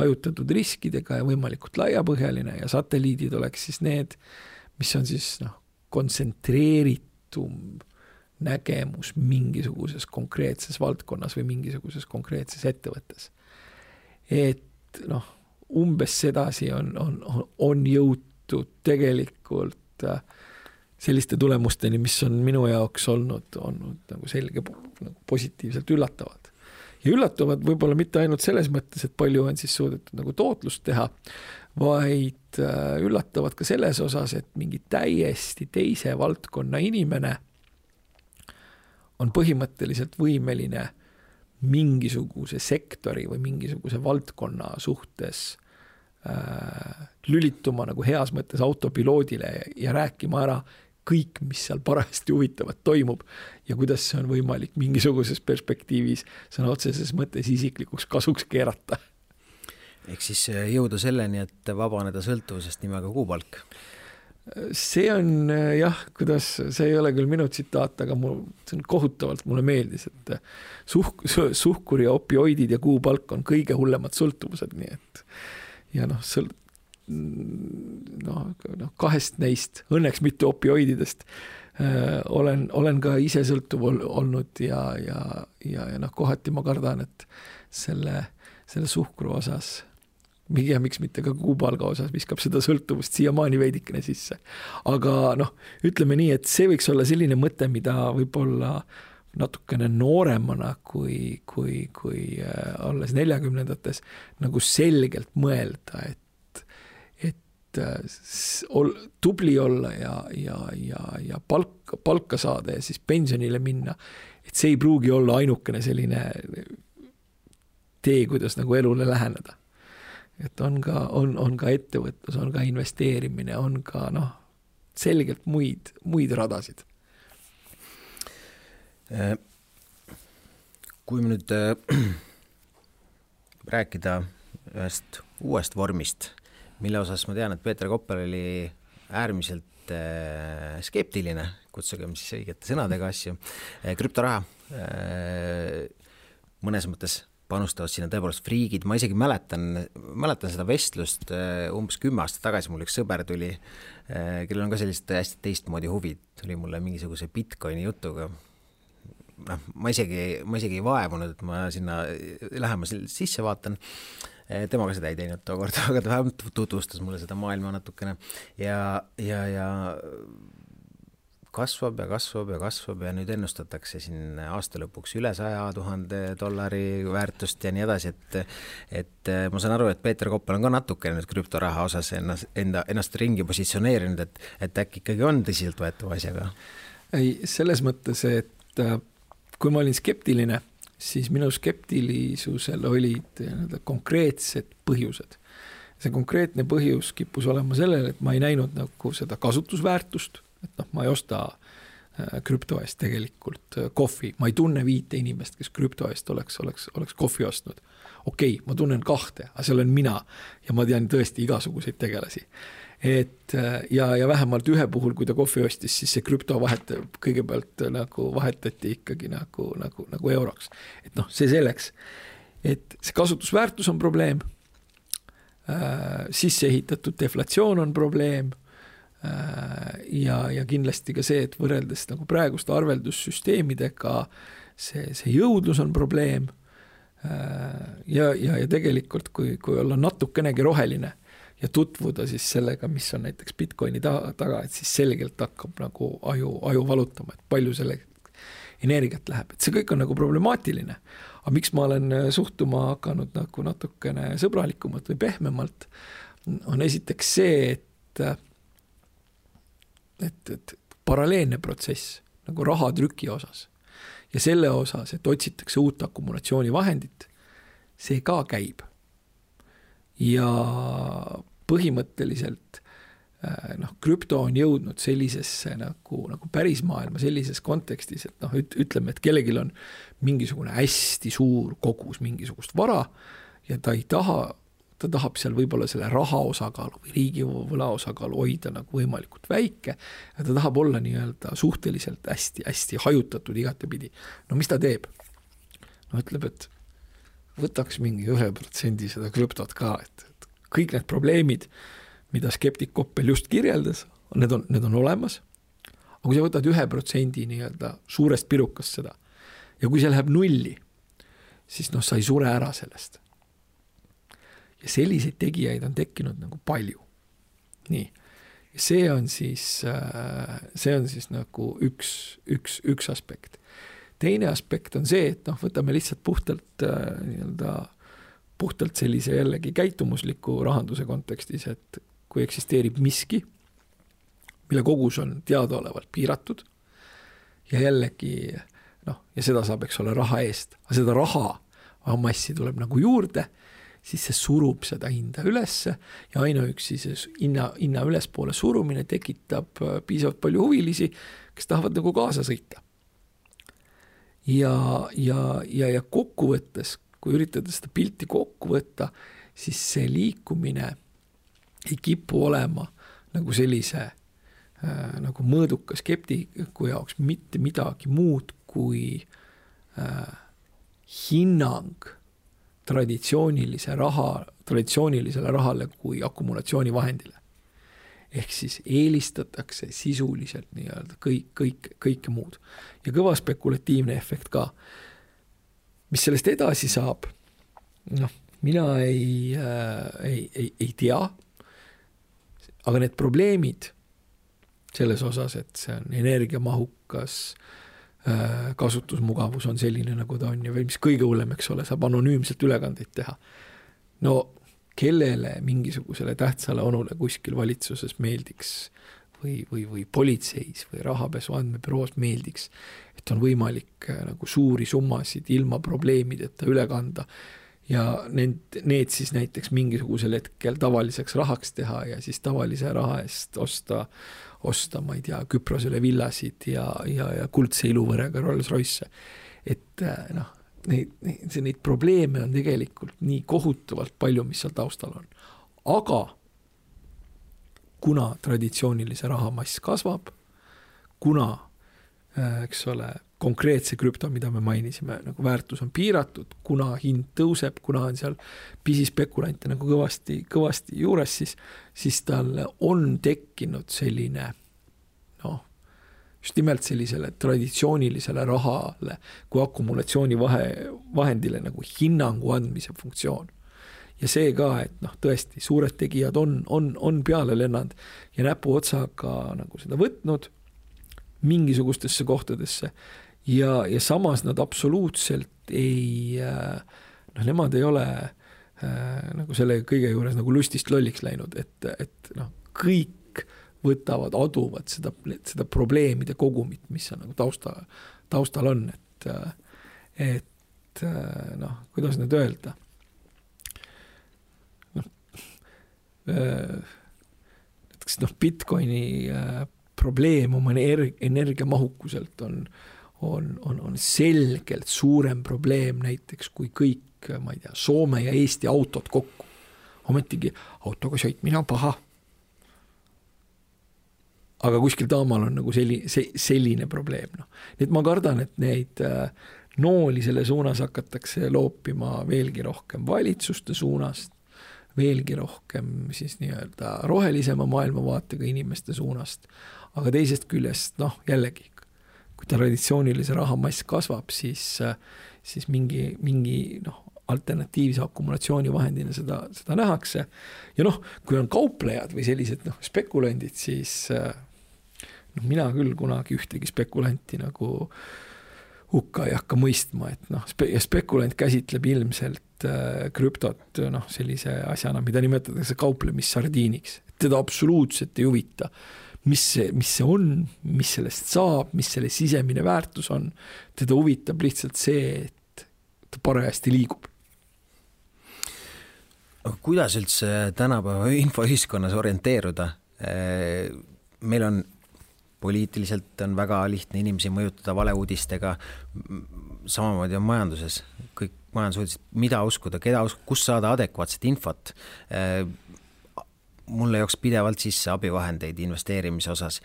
hajutatud riskidega ja võimalikult laiapõhjaline ja satelliidid oleks siis need, mis on siis kontsentreeritud nägemus mingisuguses konkreetses valdkonnas või mingisuguses konkreetses ettevõttes. Et umbes sedasi on jõutud tegelikult selliste tulemusteni, mis on minu jaoks olnud nagu selge positiivselt üllatavad. Ja üllatuvad võib-olla mitte ainult selles mõttes, et palju on siis suudetud nagu tootlust teha, vaid üllatavad ka selles osas, et mingi täiesti teise valdkonna inimene on põhimõtteliselt võimeline mingisuguse sektori või mingisuguse valdkonna suhtes lülituma nagu heas mõttes autopiloodile ja rääkima ära kõik, mis seal parajasti huvitavat toimub ja kuidas see on võimalik mingisuguses perspektiivis sõna otseses mõttes isiklikuks kasuks keerata. Ehk siis jõuda selleni, et vabaneda sõltuvusest nimega kuupalk. See on see ei ole küll minu tsitaat, aga see on kohutavalt mulle meeldis, et suhkur ja opioidid ja kuupalk on kõige hullemad sõltuvused, nii et ja kahest neist, õnneks mitte opioididest, olen ka ise sõltuv olnud ja kohati ma kardan, et selle suhkru osas miks mitte ka kuupalga osas viskab seda sõltuvust siiamaani veidikene sisse. Aga ütleme nii, et see võiks olla selline mõte, mida võib-olla natukene nooremana kui alles 40-ndates nagu selgelt mõelda, et tubli olla ja palka saada ja siis pensionile minna, et see ei pruugi olla ainukene selline tee, kuidas nagu elule läheneda. Et on ka ettevõtlus, on ka investeerimine, on ka selgelt muid radasid. Kui me nüüd rääkida ühest uuest vormist, mille osas ma tean, et Peeter Kopper oli äärmiselt skeptiline, kutsugem siis õigete sõnadega asju, krüptoraha mõnes mõttes panustavad sinna tõepoolest friigid, ma isegi mäletan seda vestlust umbes 10 aastat tagasi, mul üks sõber tuli, kellel on ka sellist hästi teistmoodi huvid, tuli mulle mingisuguse Bitcoini jutuga. Ma isegi ei vaevunud, et ma sinna lähema sisse vaatan. Temaga seda ei teinud tookord, aga ta vähemalt tutvustas mulle seda maailma natukene ja kasvab ja nüüd ennustatakse siin aasta lõpuks üle $100,000 väärtust ja nii edasi, et ma saan aru, et Peeter Koppel on ka natuke nüüd krüptoraha osas ennast ringi positsioneerinud, et äkki ikkagi on tõsiselt võetava asjaga? Ei, selles mõttes, et kui ma olin skeptiline, siis minu skeptilisusel olid konkreetsed põhjused. See konkreetne põhjus kippus olema sellele, et ma ei näinud nagu seda kasutusväärtust, et ma ei osta krüpto eest tegelikult kohvi. Ma ei tunne 5 inimest, kes krüpto eest oleks kohvi ostnud. Okei, ma tunnen 2, aga seal on mina ja ma tean tõesti igasuguseid tegelasi. Ja vähemalt ühe puhul, kui ta kohvi ostis, siis see krüpto kõigepealt nagu vahetati ikkagi nagu euroks. Et see selleks, et see kasutusväärtus on probleem, sisse ehitatud deflatsioon on probleem, ja kindlasti ka see, et võrreldes nagu praeguste arveldussüsteemidega see jõudlus on probleem ja tegelikult kui olla natukenegi roheline ja tutvuda siis sellega, mis on näiteks Bitcoini taga, et siis selgelt hakkab nagu aju valutama, et palju selle energiat läheb, et see kõik on nagu problemaatiline. Aga miks ma olen suhtuma hakanud nagu natukene sõbralikumalt või pehmemalt, on esiteks see, et paralleelne protsess nagu rahatrüki osas ja selle osas, et otsitakse uut akumulatsioonivahendit, see ka käib. Ja põhimõtteliselt krüpto on jõudnud sellisesse nagu päris maailma sellises kontekstis, et ütleme, et kellelgi on mingisugune hästi suur kogus mingisugust vara ja ta tahab seal võib-olla selle raha osakaalu või riigi võla osakaalu hoida nagu võimalikult väike ja ta tahab olla nii-öelda suhteliselt hästi hajutatud igatepidi. No mis ta teeb? Ütleb, et võtaks mingi 1% seda krüptot ka, et kõik need probleemid, mida skeptik Koppel just kirjeldas, need on olemas. Aga kui sa võtad 1% nii-öelda suurest pirukast seda ja kui see läheb 0, siis sa ei sure ära sellest. Ja selliseid tegijaid on tekkinud nagu palju. Nii. Ja see on siis nagu üks aspekt. Teine aspekt on see, et võtame lihtsalt puhtalt sellise jällegi käitumusliku rahanduse kontekstis, et kui eksisteerib miski, mille kogus on teadaolevalt piiratud ja jällegi, ja seda saab, eks ole, raha eest, aga seda raha massi tuleb nagu juurde, siis see surub seda hinda ülesse ja ainuüksi see hinna ülespoole surumine tekitab piisavalt palju huvilisi, kes tahavad nagu kaasa sõita. Ja kokkuvõttes, kui üritada seda pilti kokku võtta, siis see liikumine ei kipu olema nagu sellise nagu mõõduka skeptiku jaoks mitte midagi muud kui hinnang traditsioonilisele rahale kui akumulatsioonivahendile. Ehk siis eelistatakse sisuliselt nii-öelda kõike muud. Ja kõva spekulatiivne efekt ka. Mis sellest edasi saab? Mina ei tea, aga need probleemid selles osas, et see on energiamahukas, kasutusmugavus on selline, nagu ta on ja mis kõige hullem, eks ole, saab anonüümselt ülekandeid teha. No kellele mingisugusele tähtsale onule kuskil valitsuses meeldiks või politseis või rahapesu andmebüroos meeldiks, et on võimalik nagu suuri summasid ilma probleemideta üle kanda ja need siis näiteks mingisugusel hetkel tavaliseks rahaks teha ja siis tavalise raha eest osta, ma ei tea, Küprosele villasid ja kuldse iluvõrega Rolls-Royce. Et neid probleeme on tegelikult nii kohutavalt palju, mis seal taustal on. Aga kuna traditsioonilise rahamass kasvab, kuna, eks ole, konkreetse krüpto, mida me mainisime, nagu väärtus on piiratud, kuna hind tõuseb, kuna on seal pisispekulante nagu kõvasti juures, siis tal on tekkinud selline just nimelt sellisele traditsioonilisele rahale kui akumulatsiooni vahendile nagu hinnangu andmise funktsioon. Ja see ka, et tõesti, suured tegijad on peale lennanud ja näpu otsaga nagu seda võtnud mingisugustesse kohtadesse ja samas nad absoluutselt ei, nemad ei ole nagu selle kõige juures nagu lustist lolliks läinud, et kõik võtavad, aduvad seda probleemide kogumit, mis on nagu taustal on, et kuidas nüüd öelda, näiteks Bitcoini probleem oma energiamahukuselt on selgelt suurem probleem näiteks kui kõik, ma ei tea, Soome ja Eesti autod kokku. Ometigi autoga sõitmine on paha. Aga kuskil taamal on nagu selline probleem. Nii et ma kardan, et neid nooli selle suunas hakatakse loopima veelgi rohkem valitsuste suunast, veelgi rohkem siis nii-öelda rohelisema maailmavaatega inimeste suunast. Aga teisest küljest, jällegi, kui traditsioonilise rahamass kasvab, siis mingi alternatiivse akumulatsioonivahendina seda nähakse. Ja kui on kauplejad või sellised spekulandid, siis mina küll kunagi ühtegi spekulanti nagu hukka ei hakka mõistma, et spekulant käsitleb ilmselt krüptot sellise asjana, mida nimetatakse kauplemissardiiniks. Teda absoluutselt ei huvita, mis see on, mis sellest saab, mis selle sisemine väärtus on. Teda huvitab lihtsalt see, et ta parajasti liigub. Aga kuidas üldse tänapäeva infoühiskonnas orienteeruda? Meil on poliitiliselt on väga lihtne inimesi mõjutada valeuudistega, samamoodi on majanduses, kõik majandusuudised, mida uskuda, keda uskuda, kus saada adekvaatset infot. Mulle jooks pidevalt sisse abivahendeid investeerimise osas,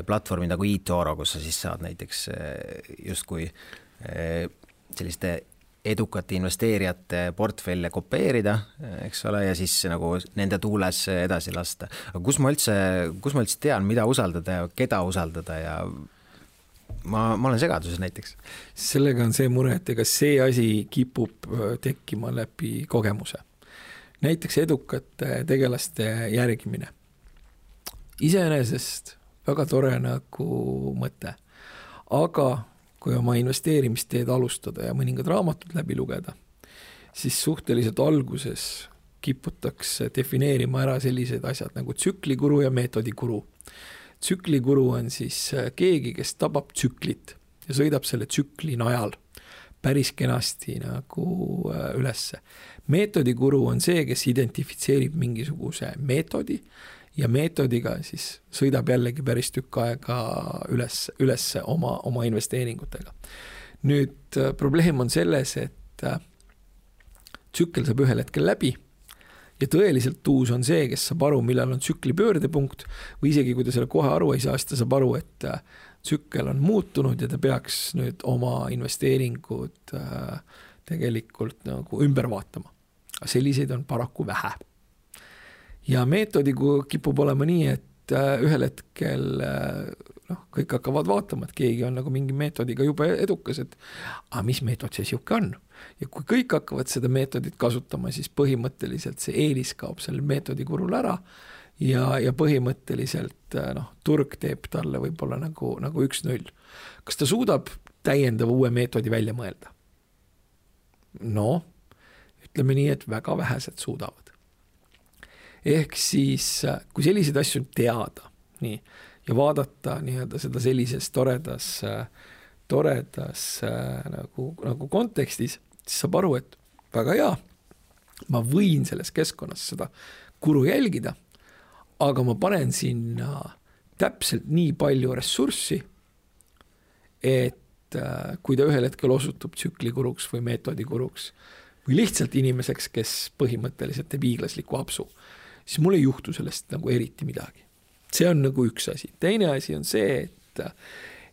platvormi nagu eToro, kus sa siis saad näiteks justkui selliste edukate investeerijate portfelle kopeerida, eks ole, ja siis nagu nende tuules edasi lasta. Aga kus ma üldse tean, mida usaldada ja keda usaldada ja ma olen segaduses näiteks. Sellega on see mure, et ega see asi kipub tekkima läbi kogemuse. Näiteks edukate tegelaste järgimine. Iseenesest väga tore nagu mõte, aga kui oma investeerimisteed alustada ja mõningad raamatud läbi lugeda, siis suhteliselt alguses kiputakse defineerima ära sellised asjad nagu tsüklikuru ja meetodikuru. Tsüklikuru on siis keegi, kes tabab tsüklit ja sõidab selle tsükli najal päris kenasti nagu ülesse. Meetodikuru on see, kes identifitseerib mingisuguse meetodi ja meetodiga siis sõidab jällegi päris tükk aega üles oma investeeringutega. Nüüd probleem on selles, et tsükkel saab ühel hetkel läbi ja tõeliselt tuus on see, kes saab aru, millal on tsükli pöördepunkt või isegi kui ta selle kohe aru ei saa, siis ta saab aru, et tsükkel on muutunud ja ta peaks nüüd oma investeeringud tegelikult nagu ümber vaatama. Selliseid on paraku vähe. Ja meetodiga kipub olema nii, et ühel hetkel kõik hakkavad vaatama, et keegi on nagu mingi meetodiga juba edukas, et mis meetod see siuke on? Ja kui kõik hakkavad seda meetodit kasutama, siis põhimõtteliselt see eelis kaob selle meetodikurul ära ja põhimõtteliselt turg teeb talle võib-olla nagu 1-0. Kas ta suudab täiendava uue meetodi välja mõelda? Ütleme nii, et väga vähesed suudavad. Ehk siis, kui selliseid asju teada nii, ja vaadata nii-öelda seda sellises toredas nagu kontekstis, siis saab aru, et väga hea, ma võin selles keskkonnas seda kuru jälgida, aga ma panen sinna täpselt nii palju ressurssi, et kui ta ühel hetkel osutub tsüklikuruks või meetodikuruks või lihtsalt inimeseks, kes põhimõtteliselt teeb hiiglasliku apsu, siis mul ei juhtu sellest nagu eriti midagi. See on nagu üks asi. Teine asi on see,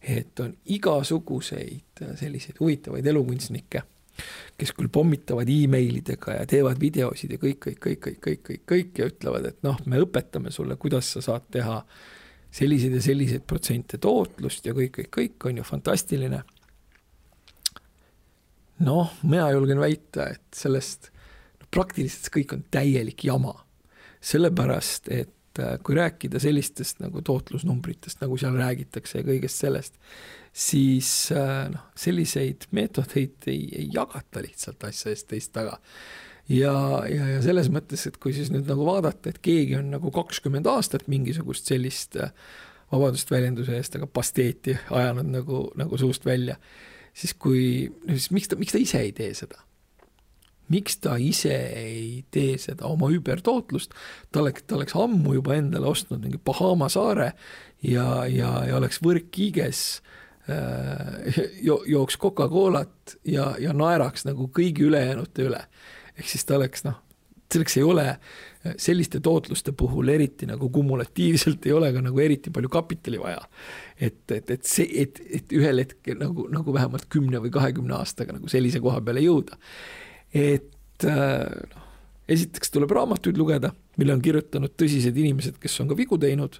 et on igasuguseid selliseid huvitavaid elukunstnikke, kes küll pommitavad e-mailidega ja teevad videosid ja kõik ja ütlevad, et noh, me õpetame sulle, kuidas sa saad teha selliseid ja selliseid protsente tootlust ja kõik on ju fantastiline. Noh, mina julgen väita, et sellest praktiliselt kõik on täielik jama. Sellepärast, et kui rääkida sellistest nagu tootlusnumbritest, nagu seal räägitakse ja kõigest sellest, siis selliseid meetodeid ei jagata lihtsalt asja eest teist taga. Ja selles mõttes, et kui siis nüüd nagu vaadata, et keegi on nagu 20 aastat mingisugust sellist vabadust väljenduse eest, aga pasteeti ajanud nagu suust välja, siis miks ta ise ei tee seda? Miks ta ise ei tee seda oma übertootlust? Ta oleks ammu juba endale ostnud mingi Bahama saare ja oleks võrkkiiges, jooks Coca-Colat ja naeraks nagu kõigi ülejäänute üle. Ehk siis ta oleks, selleks ei ole selliste tootluste puhul eriti nagu kumulatiivselt ei ole ka nagu eriti palju kapitali vaja. Et ühel hetkel nagu vähemalt 10 või 20 aastaga nagu sellise koha peale jõuda. Et esiteks tuleb raamatuid lugeda, mille on kirjutanud tõsised inimesed, kes on ka vigu teinud.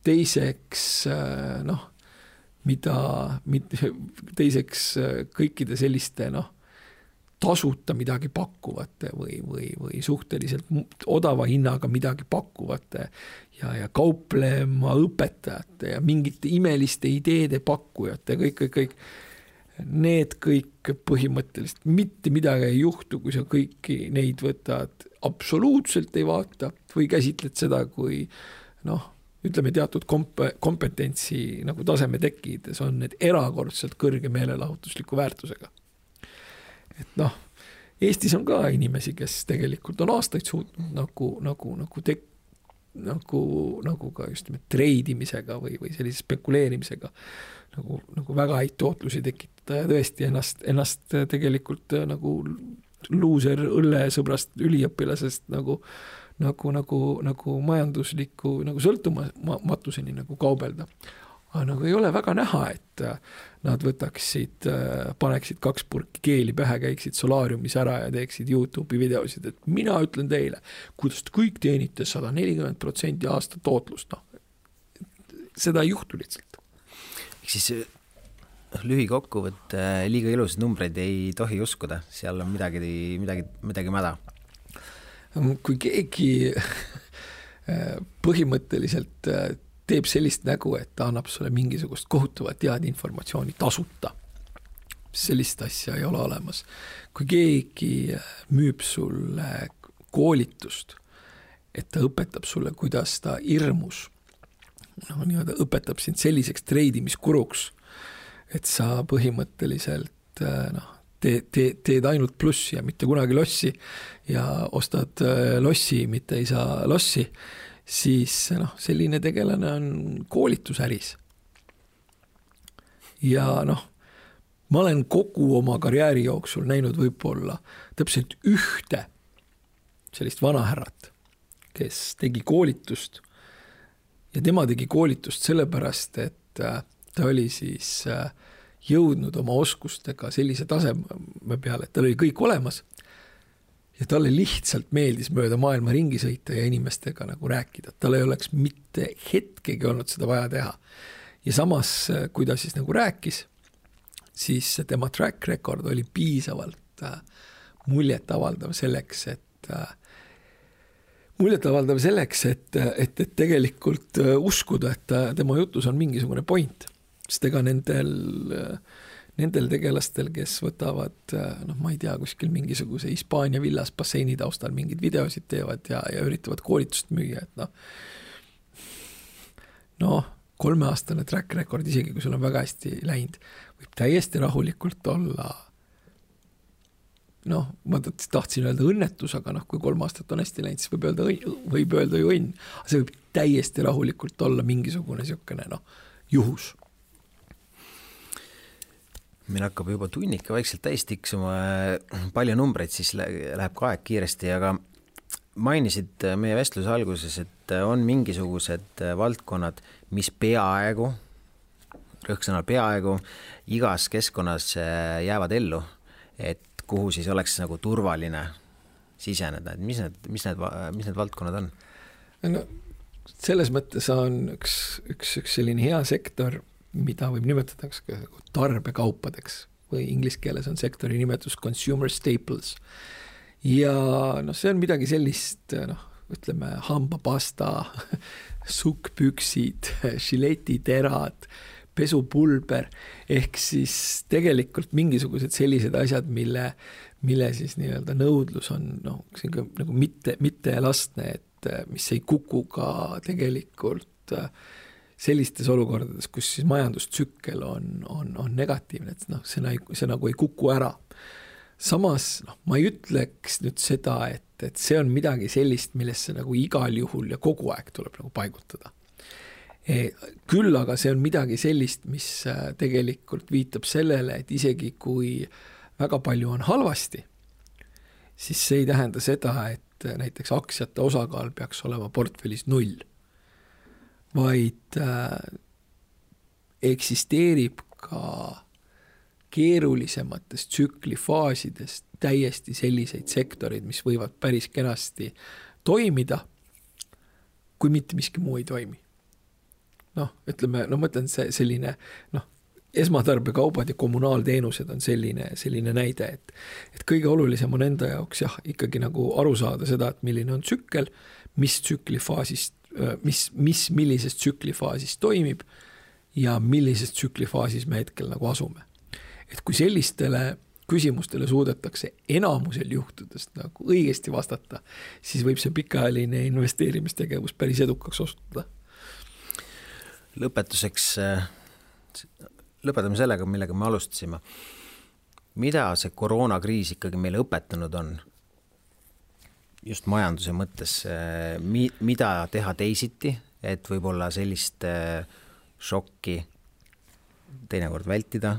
Teiseks, teiseks kõikide selliste tasuta midagi pakkuvate või suhteliselt odava hinnaga midagi pakkuvate ja kauplema õpetajate ja mingite imeliste ideede pakkujate, kõik. Need kõik põhimõtteliselt mitte midagi ei juhtu, kui sa kõiki neid võtad absoluutselt ei vaata või käsitled seda, kui ütleme teatud kompetentsi nagu taseme tekkides on need erakordselt kõrge meelelahutusliku väärtusega. Et Eestis on ka inimesi, kes tegelikult on aastaid suutnud nagu ka just treidimisega või sellise spekuleerimisega nagu väga häid tootlusi tekitada ja tõesti ennast tegelikult nagu luuser õllesõbrast üliõpilasest nagu majandusliku nagu sõltumatuseni nagu kaubelda. Aga nagu ei ole väga näha, et nad paneksid 2 purki keeli pähe, käiksid solaariumis ära ja teeksid YouTube'i videosid, et mina ütlen teile, kuidas te kõik teenite 140% aasta tootlust. Seda ei juhtu lihtsalt. Siis lühikokkuvõtte liiga ilusad numbreid ei tohi uskuda, seal on midagi mäda. Kui keegi põhimõtteliselt teeb sellist nägu, et ta annab sulle mingisugust kohutavat teadinformatsiooni tasuta, sellist asja ei ole olemas. Kui keegi müüb sulle koolitust, et ta õpetab sulle, kuidas ta hirmus, õpetab sind selliseks treidimiskuruks, et sa põhimõtteliselt teed ainult plussi ja mitte kunagi lossi ja ostad lossi, mitte ei saa lossi, siis selline tegelane on koolitusäris. Ja ma olen kogu oma karjääri jooksul näinud võib-olla täpselt ühte sellist vanahärrat, kes tegi koolitust ja tema tegi koolitust sellepärast, et ta oli siis jõudnud oma oskustega sellise taseme peale, et tal oli kõik olemas ja talle lihtsalt meeldis mööda maailma ringi sõita ja inimestega nagu rääkida. Tal ei oleks mitte hetkegi olnud seda vaja teha. Ja samas, kui ta siis nagu rääkis, siis tema track record oli piisavalt muljetavaldav selleks, et tegelikult uskuda, et tema jutus on mingisugune point. Sest ega nendel tegelastel, kes võtavad, ma ei tea, kuskil mingisuguse Hispaania villas basseini taustal mingid videosid teevad ja üritavad koolitust müüa, et 3-aastane track record, isegi kui sul on väga hästi läinud, võib täiesti rahulikult olla, ma tahtsin öelda õnnetus, aga kui 3 aastat on hästi läinud, siis võib öelda ju õnn. See võib täiesti rahulikult olla mingisugune siukene juhus. Meil hakkab juba tunnika vaikselt täis tiksuma, palju numbreid, siis läheb ka aeg kiiresti, aga mainisid meie vestluse alguses, et on mingisugused valdkonnad, mis peaaegu rõhksõnal peaaegu igas keskkonnas jäävad ellu, et kuhu siis oleks nagu turvaline siseneda, et mis need valdkonnad on? No, selles mõttes on üks selline hea sektor, mida võib nimetada tarbekaupadeks või inglise keeles on sektori nimetus consumer staples. Ja see on midagi sellist, ütleme hambapasta, sukkpüksid, žiletiterad, pesupulber, ehk siis tegelikult mingisugused sellised asjad, mille siis nii-öelda nõudlus on nagu mitte elastne, et mis ei kuku ka tegelikult sellistes olukordades, kus siis majandustsükkel on negatiivne, et see nagu ei kuku ära. Samas ma ei ütleks nüüd seda, et see on midagi sellist, millesse nagu igal juhul ja kogu aeg tuleb nagu paigutada. Küll aga see on midagi sellist, mis tegelikult viitab sellele, et isegi kui väga palju on halvasti, siis see ei tähenda seda, et näiteks aktsiate osakaal peaks olema portfellis 0, vaid eksisteerib ka keerulisemates tsüklifaasidest täiesti selliseid sektorid, mis võivad päris kenasti toimida, kui mitte miski muu ei toimi. Ütleme, ma mõtlen selline, esmatarbekaubad ja kommunaalteenused on selline näide, et kõige olulisem on enda jaoks ikkagi nagu aru saada seda, et milline on tsükkel, millises tsüklifaasis toimib ja millises tsüklifaasis me hetkel nagu asume. Et kui sellistele küsimustele suudetakse enamusel juhtudest nagu õigesti vastata, siis võib see pikaajaline investeerimistegevus päris edukaks osutuda. Lõpetuseks lõpetame sellega, millega me alustasime. Mida see koroonakriis ikkagi meile õpetanud on? Just majanduse mõttes, mida teha teisiti, et võib-olla sellist šokki teinekord vältida,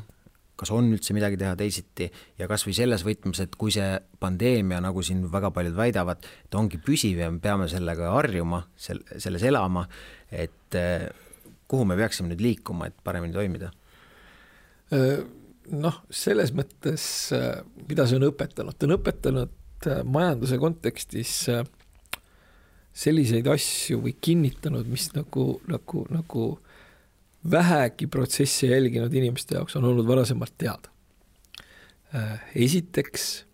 kas on üldse midagi teha teisiti ja kas või selles võtmes, et kui see pandeemia, nagu siin väga paljud väidavad, et ongi püsiv ja me peame sellega harjuma, selles elama, et kuhu me peaksime nüüd liikuma, et paremini toimida? Selles mõttes, mida see on õpetanud? Ta on õpetanud majanduse kontekstis selliseid asju või kinnitanud, mis nagu vähegi protsessi jälginud inimeste jaoks on olnud varasemalt teada. Esiteks,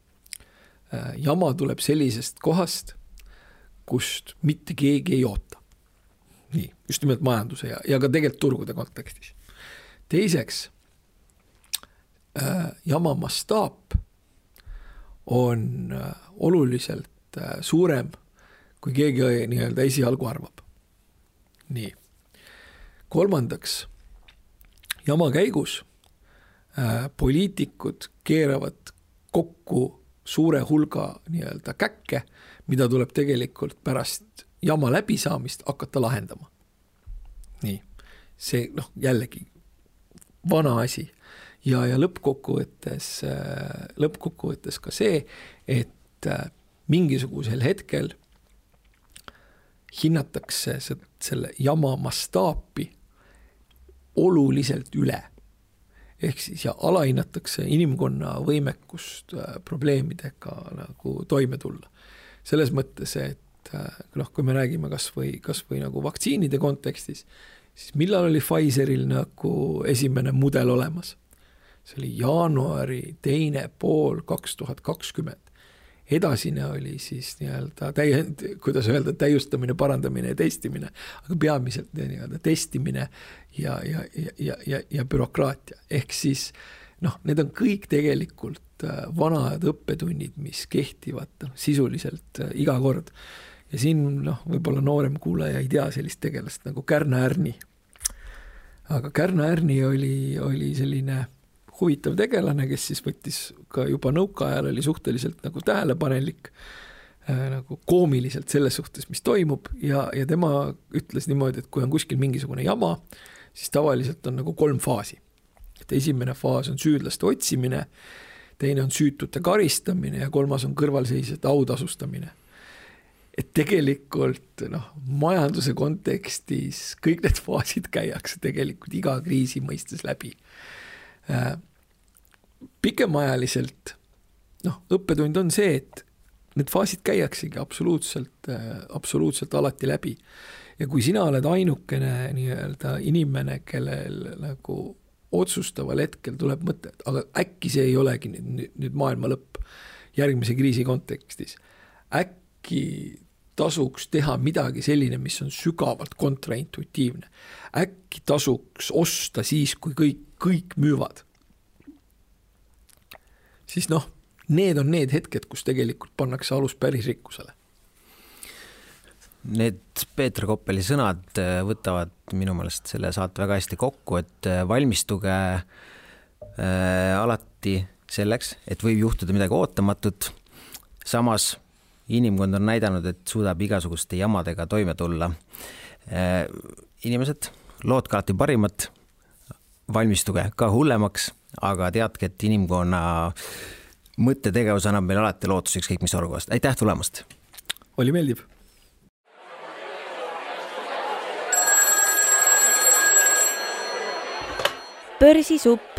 jama tuleb sellisest kohast, kust mitte keegi ei oota. Nii, just nimelt majanduse ja ka tegelikult turgude kontekstis. Teiseks, jama mastaap on oluliselt suurem, kui keegi nii-öelda esialgu arvab. Nii. Kolmandaks, jama käigus poliitikud keeravad kokku suure hulga nii-öelda käkke, mida tuleb tegelikult pärast jama läbisaamist hakata lahendama. Nii, see jällegi vana asi. Ja lõppkokkuvõttes ka see, et mingisugusel hetkel hinnatakse selle jama mastaapi oluliselt üle. Ehk siis ja alahinnatakse inimkonna võimekust probleemidega nagu toime tulla. Selles mõttes, et kui me räägime kas või nagu vaktsiinide kontekstis, siis millal oli Pfizeril nagu esimene mudel olemas? See oli jaanuari 2. pool 2020. Edasine oli siis nii-öelda täiustamine, parandamine ja testimine, aga peamiselt nii-öelda testimine ja bürokraatia. Ehk siis need on kõik tegelikult vanad õppetunnid, mis kehtivad sisuliselt iga kord. Ja siin võib-olla noorem kuulaja ei tea sellist tegelast nagu Kärna Ärni. Aga Kärna Ärni oli selline huvitav tegelane, kes siis võttis ka juba nõukaajal oli suhteliselt nagu tähelepanelik, nagu koomiliselt selles suhtes, mis toimub ja tema ütles niimoodi, et kui on kuskil mingisugune jama, siis tavaliselt on nagu 3 faasi. Et esimene faas on süüdlaste otsimine, teine on süütute karistamine ja 3. on kõrvalseisjate autasustamine. et tegelikult majanduse kontekstis kõik need faasid käiakse tegelikult iga kriisi mõistes läbi. Pikemaajaliselt õppetund on see, et need faasid käiaksegi absoluutselt alati läbi. Ja kui sina oled ainukene nii-öelda inimene, kellel nagu otsustaval hetkel tuleb mõte, aga äkki see ei olegi nüüd maailma lõpp järgmise kriisi kontekstis. Äkki tasuks teha midagi selline, mis on sügavalt kontraintuitiivne. Äkki tasuks osta siis, kui kõik müüvad. Siis need on need hetked, kus tegelikult pannakse alus päris rikkusele. Need Peeter Koppeli sõnad võtavad minu meelest selle saate väga hästi kokku, et valmistuge alati selleks, et võib juhtuda midagi ootamatut. Samas inimkond on näidanud, et suudab igasuguste jamadega toime tulla. Inimesed, loodke alati parimat, valmistuge ka hullemaks, aga teadke, et inimkonna mõttetegevus annab meil alati lootuseks kõik mis olukorrast. Aitäh tulemast! Oli meeldib! Börsisupp